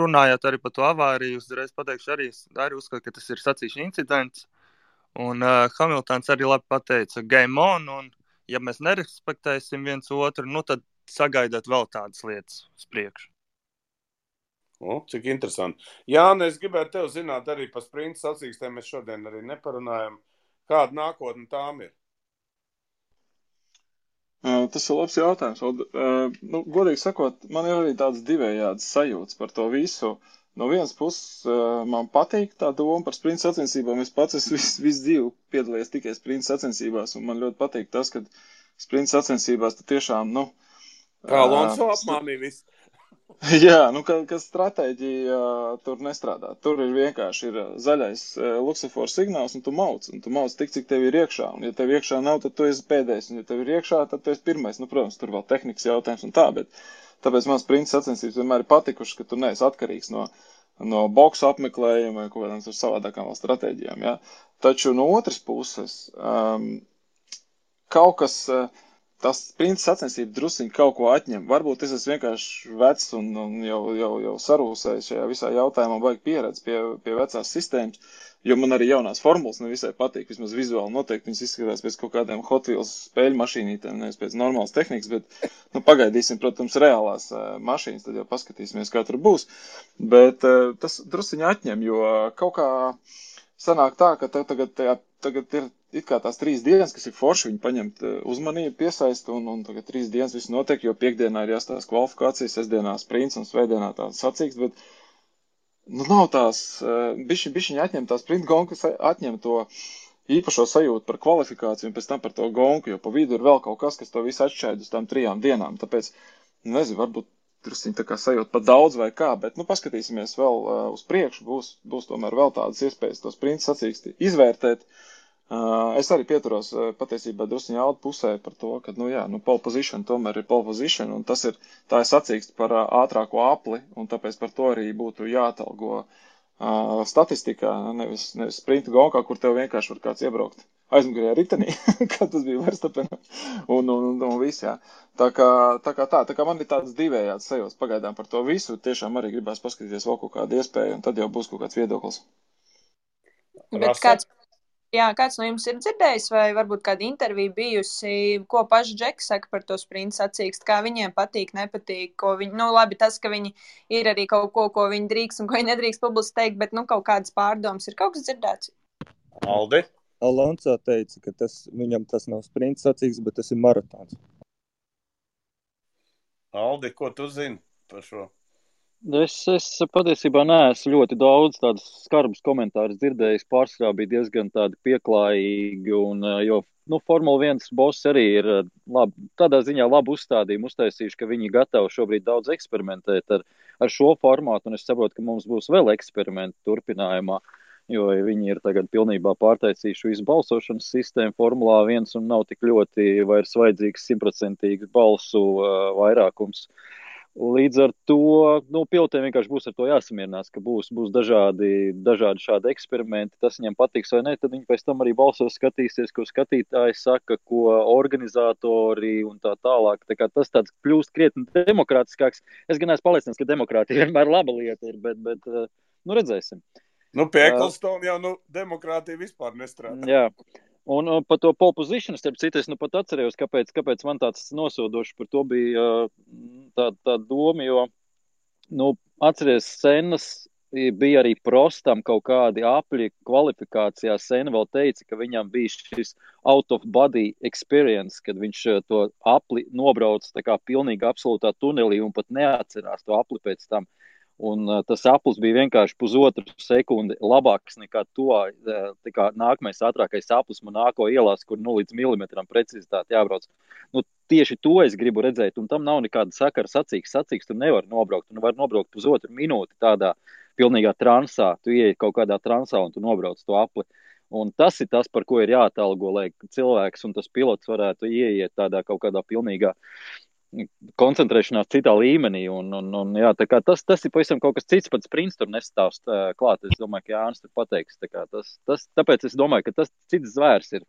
runājot arī par to avāriju, uzreiz pateikšu, arī uzskatu, ka tas ir sacīkšu incidents, un Hamiltons arī labi pateica game on, un ja mēs nerespektēsim viens otru, tad sagaidāt vēl tādas lietas uz priekšu. Cik interesanti. Jāni, es gribētu tev zināt arī par sprinta sacīkstēm, mēs šodien arī neparunājam. Kāda nākotne tām ir? Tas ir labs jautājums. Godīgi sakot, man ir arī tāds divējāds sajūts par to visu. No vienas puses man patīk tā doma par sprinta sacensībām. Es pats visu dzīvi piedalījies tikai sprinta sacensībās, un man ļoti patīk tas, ka sprinta sacensībās tu tiešām, Kā Alonso apmānīja visu. Jā, ka stratēģija tur nestrādā. Tur ir vienkārši zaļais luksofors signāls, un tu mauc tik, cik tev ir iekšā. Un ja tev iekšā nav, tad tu esi pēdējais, un ja tev ir iekšā, tad tu esi pirmais. Protams, tur vēl tehnikas jautājums un tā, bet tāpēc man sprinta sacensības vienmēr ir patikušas, ka tu neesi atkarīgs no boksu apmeklējuma vai kaut kādām tur savādākām vēl stratēģijām. Ja? Taču no otras puses, kaut kas, tas sprinta sacensība drusciņi kaut ko atņem. Varbūt es esmu vienkārši vecs un jau sarūsējis šajā visā jautājumā, baigi pieredzi pie vecās sistēmas, jo man arī jaunās formulas nevisai patīk, vismaz vizuāli noteikti viņas izskatās pēc kaut kādiem Hot Wheels spēļu mašīnītēm, nevis pēc normālas tehnikas, bet pagaidīsim, protams, reālās mašīnas, tad jau paskatīsimies, kā tur būs. Bet tas drusciņi atņem, jo kaut kā sanāk tā, ka tagad ir it kā tās 3 dienas, kas ir forši, viņi paņemt uzmanību, piesaista, un tagad 3 dienas viss notiek, jo piekdienā ir jāstāsta kvalifikācijas, sestdienā sprints un svētdienā tāds sacīks, bet nav tās, bišķiņi atņem tās sprint gonku, atņem to īpašo sajūtu par kvalifikāciju un pēc tam par to gonku, jo pa vidu ir vēl kaut kas to visu atšķaid uz tām 3 dienām, tāpēc, nezinu, varbūt drusciņi tā kā sajūt pat daudz vai kā, bet, paskatīsimies vēl uz priekšu, būs tomēr vēl tādas iespējas to sprint sacīksti izvērtēt. Es arī pieturos patiesībā drusciņi Alda pusē par to, ka, pole position tomēr ir pole position, un tā ir sacīksts par ātrāko apli, un tāpēc par to arī būtu jāatalgo statistikā, nevis sprinta gonkā, kur tev vienkārši var kāds iebraukt aizmugurējā ritenī, kā tas bija Verstapenā, un viss, jā. Tā kā man ir tāds divējāds sajūts pagaidām par to visu, tiešām arī gribās paskatīties vēl kaut kādu iespēju, un tad jau būs kaut kāds viedoklis. Bet kāds no jums ir dzirdējis, vai varbūt kāda intervija bijusi, ko paši Džeki saka par to sprinta sacīkstu, kā viņiem patīk, nepatīk, ko viņi, labi, tas, ka viņi ir arī kaut ko viņi drīkst un ko viņi nedrīkst publiski teikt, bet, kaut kādas pārdomas ir kaut kas dzirdēts? Aldi? Alonso teica, ka viņam tas nav sprinta sacīksts, bet tas ir maratons. Aldi, ko tu zini par šo? Es patiesībā neesmu ļoti daudz tādus skarbus komentārus dzirdējis, pārsvarā bija diezgan tādi pieklājīgi, jo Formula 1 boss arī ir tādā ziņā labu uzstādījumu uztaisījuši, ka viņi gatavi šobrīd daudz eksperimentēt ar šo formātu, un es saprotu, ka mums būs vēl eksperimenti turpinājumā, jo viņi ir tagad pilnībā pārtaisījuši visu balsošanas sistēmu Formulā 1 un nav tik ļoti vairs vajadzīgs 100% balsu vairākums. Līdz ar to, pilotiem vienkārši būs ar to jāsamierinās, ka būs dažādi šādi eksperimenti, tas viņiem patiks vai ne, tad viņi pēc tam arī balsos skatīsies, ko skatītāji saka, ko organizatori un tā tālāk. Tā kā tas tāds kļūst krietni demokrātiskāks. Es gan esmu pārliecināts, ka demokrātija vienmēr laba lieta ir, bet Nu, redzēsim. Nu, pie Ecclestone jau demokrātija vispār nestrādā. Jā. Un par to pole position, starp citu, es pat atcerējos, kāpēc man tāds nosūdošs par to bija tā doma, jo, atceries, Senas bija arī Prostam kaut kādi apļi kvalifikācijā. Sena vēl teica, ka viņam bija šis out of body experience, kad viņš to apli nobrauc tā kā pilnīgi absolūtā tunelī un pat neatcerās to apli pēc tam. Un tas aplis bija vienkārši 1,5 sekundi labāks nekā nākamais ātrākais aplis Monako ielās, kur līdz milimetram precizitāti jābrauc. Tieši to es gribu redzēt, un tam nav nekāda sakara sacīks, tu nevar nobraukt. Tu var nobraukt 1,5 minūti tādā pilnīgā transā, tu ieej kaut kādā transā un tu nobrauc to apli. Un tas ir tas, par ko ir jāatalgo, lai cilvēks un tas pilots varētu ieiet tādā kaut kādā pilnīgā koncentrēšanās citā līmenī, jā, tā kā tas ir pavisam kaut kas cits, pats Sprints tur nestāvst klāt, es domāju, ka Jānis tur pateiks, tāpēc es domāju, ka tas cits zvērs ir,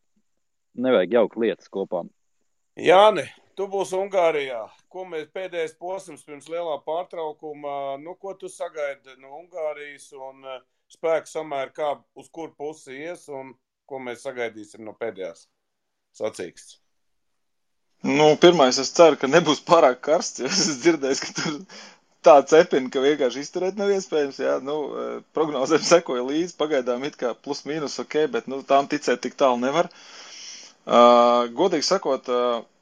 nevajag jaukt lietas kopā. Jāni, tu būsi Ungārijā, ko mēs pēdējais posms pirms lielā pārtraukuma, ko tu sagaidi no Ungārijas un spēku samēr, kā uz kur pusi ies un ko mēs sagaidīsim no pēdējās sacīkstes? Pirmais, es ceru, ka nebūs pārāk karsts, jo es dzirdēju, ka tur tā cepina, ka vienkārši izturēt nav iespējams, jā, prognozēm sekoja līdzi, pagaidām it kā plus mīnus ok, bet, tām ticēt tik tālu nevar. Godīgi sakot,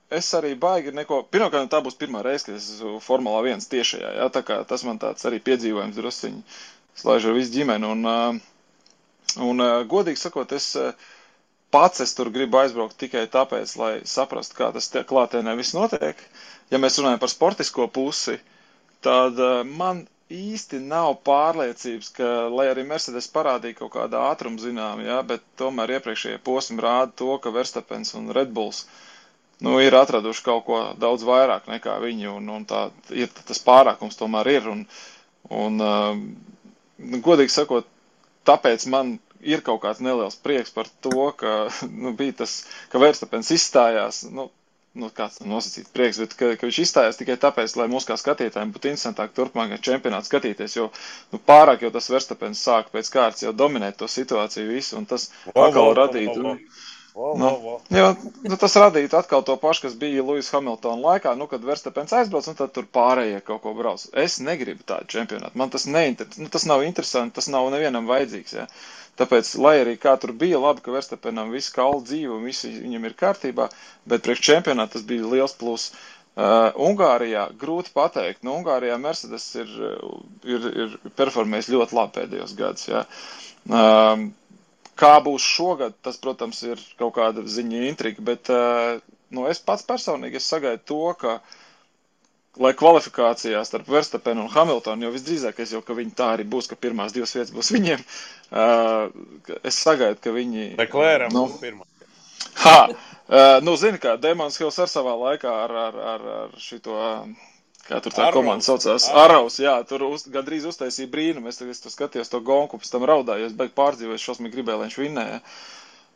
es arī baigi neko, pirmkārt, tā būs pirmā reize, kad es esmu Formulā 1 tiešajā, jā, tā kā tas man tāds arī piedzīvojums drusciņi slaiž ar visu ģimeni, un godīgi sakot, es tur gribu aizbraukt tikai tāpēc, lai saprastu, kā tas klātienē viss notiek. Ja mēs runājam par sportisko pusi, tad man īsti nav pārliecības, ka, lai arī Mercedes parādīja kaut kādā ātrumu zinām, jā, bet tomēr iepriekšējie posmi rāda to, ka Verstappens un Red Bulls ir atraduši kaut ko daudz vairāk nekā viņi, un tā ir, tas pārākums tomēr ir, un godīgi sakot, tāpēc man ir kaut kāds neliels prieks par to, ka bija tas, ka Verstappens izstājās, kāds nosacīts prieks, bet ka viņš izstājās tikai tāpēc, lai mūs kā skatītājiem būtu interesantāk turpmākajā čempionātā skatīties, jo pārāk jau tas Verstappens sāka pēc kārtas jau dominēt to situāciju visu, un tas atkal radītu. Tas radītu atkal to pašu, kas bija Lewis Hamiltona laikā, kad Verstappens aizbrauc, un tad tur pārējie kaut ko brauc. Es negribu tādu čempionātu, man tas tas nav interesanti, tas nav nevienam vajadzīgs, jā. Tāpēc, lai arī kā tur bija labi, ka Verstappenam viss kauli dzīvo un visi viņam ir kārtībā, bet priekš čempionāta tas bija liels plus. Ungārijā grūti pateikt. Ungārijā Mercedes ir performējis ļoti labi pēdējos gadus. Jā. Kā būs šogad, tas, protams, ir kaut kāda ziņa intriga, bet es pats personīgi sagaidu to, ka lai kvalifikācijā starp Verstappenu un Hamiltonu, jo visdrīzākais jau, ka viņi tā arī būs, ka pirmās 2 vietas būs viņiem, es sagaidu, ka viņi... Leclercam būs pirmā. Zini kā, Damons Hills ar savā laikā ar šito, kā tur tā komanda saucās, Araus, jā, tur gandrīz uztaisīja brīnumu, es tur skatījos to gonku, pēc tam raudāju, es beig pārdzīvoju, šausmīgi gribēju, lai viņš vinnēja.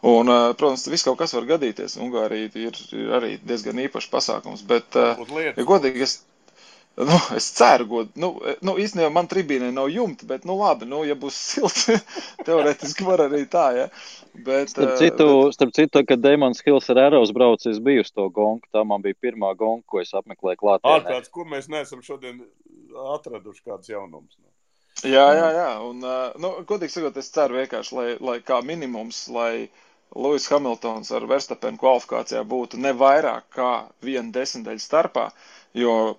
Un, protams, viss kaut kas var gadīties. Ungārija ir arī diezgan īpašs pasākums, bet, ja godīgi, es ceru, īstenībā man tribīnē nav jumta, bet, labi, ja būs silti, teorētiski var arī tā, ja. Bet, starp citu, kad Damons Hills ar Arrows braucis bija uz to gonku, tā man bija pirmā gonka, ko es apmeklēju klātienē. Ārprāts, kur mēs neesam šodien atraduši kāds jaunums. Jā, un, godīgi sakot, es ceru vienkārši, lai kā minimums, lai Lewis Hamiltons ar Verstappenu kvalifikācijā būtu ne vairāk kā 1/10 starpā, jo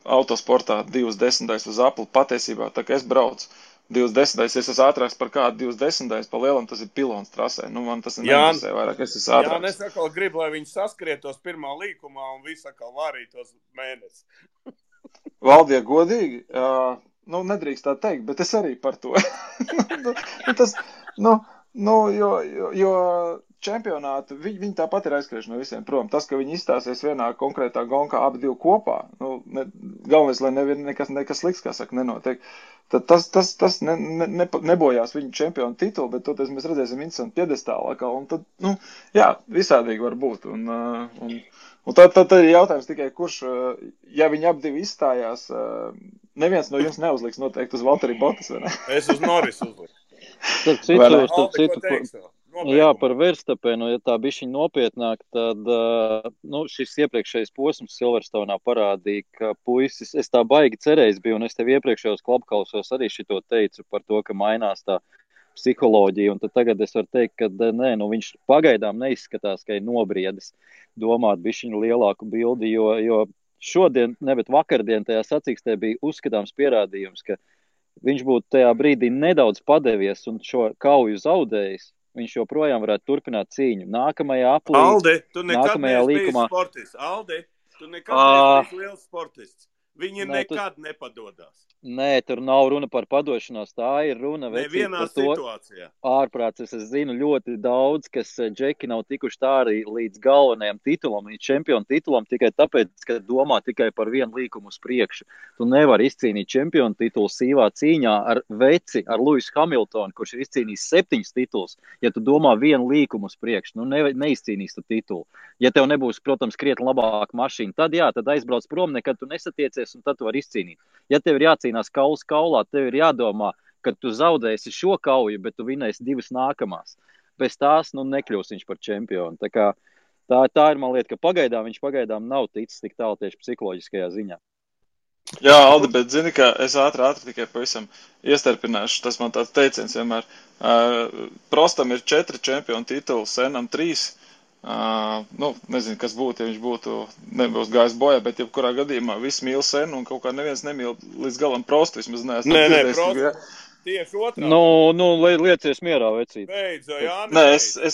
autosportā 2/10 uz apli patiesībā, tā kā es braucu 2/10, es esmu ātrāks par kādu 2/10, pa lielam tas ir pilons trasē, man tas neinteresē vairāk, es esmu ātrāks. Jā, es atkal gribu, lai viņi saskrietos pirmā līkumā un visi atkal vārītos mēnesi. Valdie, godīgi, nedrīkst tā teikt, bet es arī par to. Jo čempionātu, viņi tāpat ir aizskrieši no visiem prom. Tas, ka viņi izstāsies vienā konkrētā gonkā abi divi kopā, galvenais, lai nekas slikts, kā saka, nenotiek. Tad tas nebojās viņu čempionu titulu, bet toties mēs redzēsim interesantu piedestālu atkal, un tad, visādīgi var būt. Un tad ir jautājums tikai, kurš, ja viņi abi divi izstājās, neviens no jums neuzliks noteikti uz Valtteri Bottas, vai ne? Es uz Norris uzliku. Starp Alde, ko citu, teiksi? jā, par Verstapenu, ja tā bišķiņ nopietnāk, tad šis iepriekšējais posms Silverstoneā parādīja, ka puisis, es tā baigi cerējis biju, un es tev iepriekšējos klubkausos arī šito teicu par to, ka mainās tā psiholoģija, un tad tagad es varu teikt, ka nē, viņš pagaidām neizskatās, ka ir nobriedis domāt bišķiņu lielāku bildi, jo šodien, ne, bet vakardien tajā sacīkstē bija uzskatāms pierādījums, ka viņš būtu tajā brīdī nedaudz padevies un šo kauju zaudējis, viņš joprojām varētu turpināt cīņu. Nākamajā aplī, Alde, tu nekad nākamajā neesi bijis līkumā. sportists. Alde, tu nekad neesi bijis liels sportists. Viņi Nē, nekad nepadodās. Nē, tur nav runa par padošanos, tā ir runa Nevienā par to situācijā. ārprāts. Es zinu ļoti daudz, kas džeki nav tikuši tā arī līdz galvenajam titulam, līdz čempionu titulam, tikai tāpēc, ka domā tikai par vienu līkumu uz priekšu. Tu nevari izcīnīt čempionu titulu sīvā cīņā ar veci, ar Lewisu Hamiltonu, kurš ir izcīnījis 7 tituls. Ja tu domā vienu līkumu uz priekšu, neizcīnīs tu titulu. Ja tev nebūs, protams, krietni labāka mašīna, tad jā, tad aizbrauc prom, nekad tu nesatiecies un tad tu vari izcīnīt. Ja tev ir jācīnās kauls kaulā, tev ir jādomā, ka tu zaudēsi šo kauju, bet tu vinēsi 2 nākamās. Bez tās, nekļūs viņš par čempionu. Tā ir, man lieta, ka viņš pagaidām nav ticis tik tālu tieši psiholoģiskajā ziņā. Jā, Aldi, bet zini, ka es ātri tikai pavisam iestarpināšu. Tas man tāds teiciens vienmēr. Prostam ir 4 čempionu tituli, Senam 3. Nezinu, kas būtu, ja viņš nebūs gājis bojā, bet jebkurā gadījumā viss mīl Senu un kaut kā neviens nemīl līdz galam Prostu. Vismaz neesmu dzirdējis. Prostu. Tieši otrā. Liecies mierā, vecīt. Beidz, Jānis. Nē,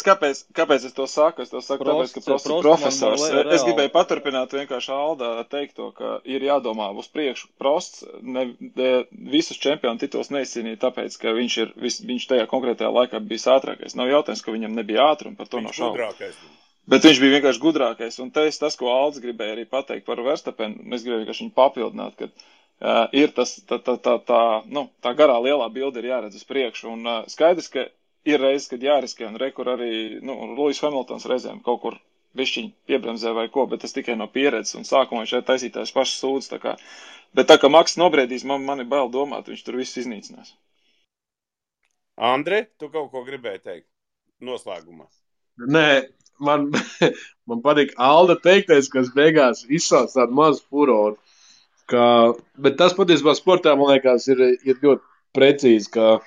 kāpēc es to saku? Es to saku tāpēc, ka Prosts ir profesors. Es gribēju paturpināt vienkārši Aldā teikto, ka ir jādomā uz priekšu. Prosts visus čempionu tituls neizcīnīja tāpēc, ka viņš tajā konkrētajā laikā bijis ātrākais. Nav jautājums, ka viņam nebija ātruma, par to nav šaubu. Bet viņš bija vienkārši gudrākais. Un tas, ko Alds gribēja arī pateikt par Verstapenu, mēs gribējām vienkārši viņu papildināt, ka ir tā garā lielā bilde ir jāredz uz priekšu. Un skaidrs, ka ir reizes, kad jāriskē, un kur arī Lewis Hamiltons reizēm kaut kur bišķiņ piebremzē vai ko, bet tas tikai no pieredzes, un sākumā viņš taisītājs pašas sūdz. Bet tā kā Maks nobriedīs, man ir bail domāt, viņš tur viss iznīcinās. Andre, tu kaut ko gribēji teikt noslēgumā? Nē, man patīk Alda teiktais, kas beigās izsauc tādu mazu furoru. Bet tas patiesībā sportā, man liekas, ir ļoti precīzi, ka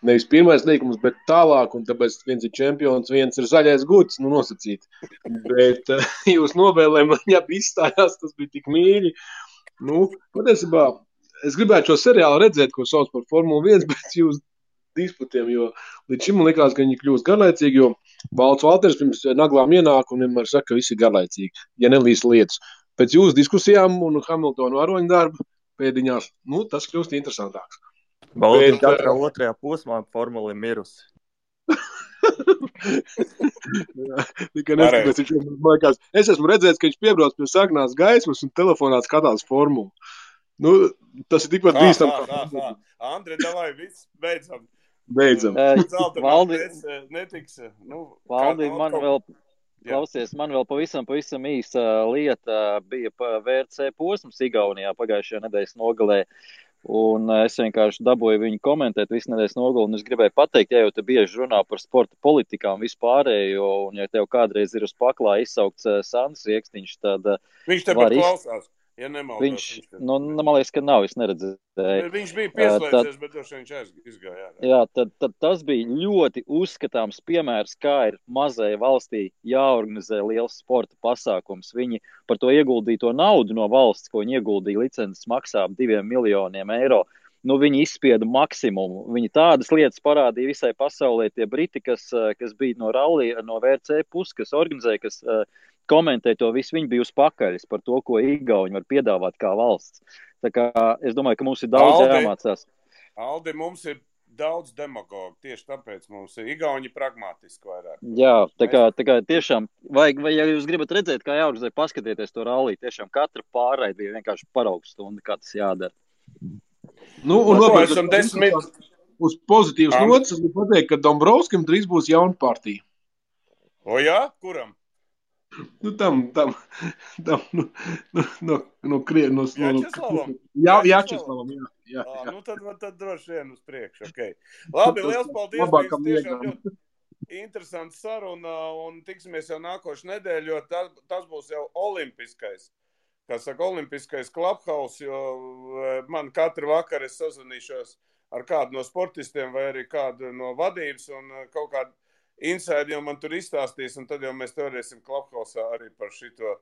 nevis pirmais līkums, bet tālāk, un tāpēc viens ir čempions, viens ir zaļais guds, nosacīt. Bet jūs novēlē man jābi izstājās, tas bija tik mīļi. Patiesībā, es gribētu šo seriālu redzēt, ko sauc par Formulu 1, bet jūs disputiem, jo līdz šim man likās, ka viņi kļūst garlaicīgi, jo Valts Valters pirms naglām ienāk un vienmēr saka, ka visi ir garlaicīgi, ja nelīst lietas. Pēc jūsu diskusijām un Hamiltonu aroņu darbu pēdiņās, tas kļūst interesantāks. Valdim katrā otrajā posmā formula ir mirusi. Tikai neskatās, man liekas, es esmu redzējis, ka viņš piebrauc pie sarkanās gaismas un telefonā skatās formulu. Tas ir tikpat bīstam. Andre, davai, viss, beidzam. Valdi, man vēl pavisam īsa lieta bija VRC posms Igaunijā pagājušajā nedēļas nogalē. Un es vienkārši dabūju viņu komentēt visu nedēļas nogali, un es gribēju pateikt, ja jau te bieži runā par sporta politikām vispārējo, un ja tev kādreiz ir uz paklā izsaukts Sandrs Riekstiņš, tad viņš te pat klausās. Ja nemaldos, man liekas, ka nav, es neredzēju. Viņš bija pieslēdzies, bet viņš izgāja. Jā, tad tas bija ļoti uzskatāms piemērs, kā ir mazai valstī jāorganizē liels sporta pasākums. Viņi par to ieguldīto naudu no valsts, ko viņi ieguldīja licences maksā 2 miljoniem eiro. Viņi izspieda maksimumu. Viņi tādas lietas parādīja visai pasaulē. Tie briti, kas bija no rallija, no VRC puses, kas organizēja, kas komentē to visu, viņi bija uz pakaļas par to, ko Igauni var piedāvāt kā valsts. Tā kā es domāju, ka mums ir daudz jāmācās. Aldi, mums ir daudz demagogu, tieši tāpēc mums ir Igauni pragmatiski vairāk. Jā, tā kā tiešām, vai ja jūs gribat redzēt, kā jāorganizē, paskatieties to ralliju, tiešām katra pārraide bija vienkārši paraugstunda, kā tas jādara. Uz pozitīvas notas, es gribu pateikt, ka Dombrovskim drīz būs jauna partija. O jā? Kuram? Nu, no Krievijas. Jačeslavam, jā. Nu, tad droši vien uz priekšu. Okay. Labi, liels paldies. Bija tiešām ļoti interesanta saruna un tiksimies jau nākošu nedēļu, jo tas būs jau olimpiskais. Kā saka, olimpiskais Clubhouse, jo man katru vakaru es sazvanīšos ar kādu no sportistiem vai arī kādu no vadības un kaut kādu inside jau man tur izstāstīs, un tad jau mēs varēsim Clubhouse'ā arī par šito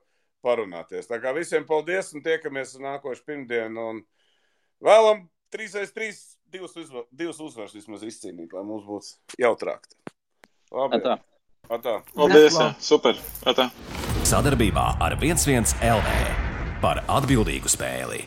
parunāties. Tā kā visiem paldies un tiekamies nākošu pirmdienu un vēlam 3x3 divas uzvaras vismaz izcīnīt, lai mums būtu jautrāk. Labi. Atā. Paldies, jā. Super. Atā. Sadarbībā ar 11 LV par atbildīgu spēli.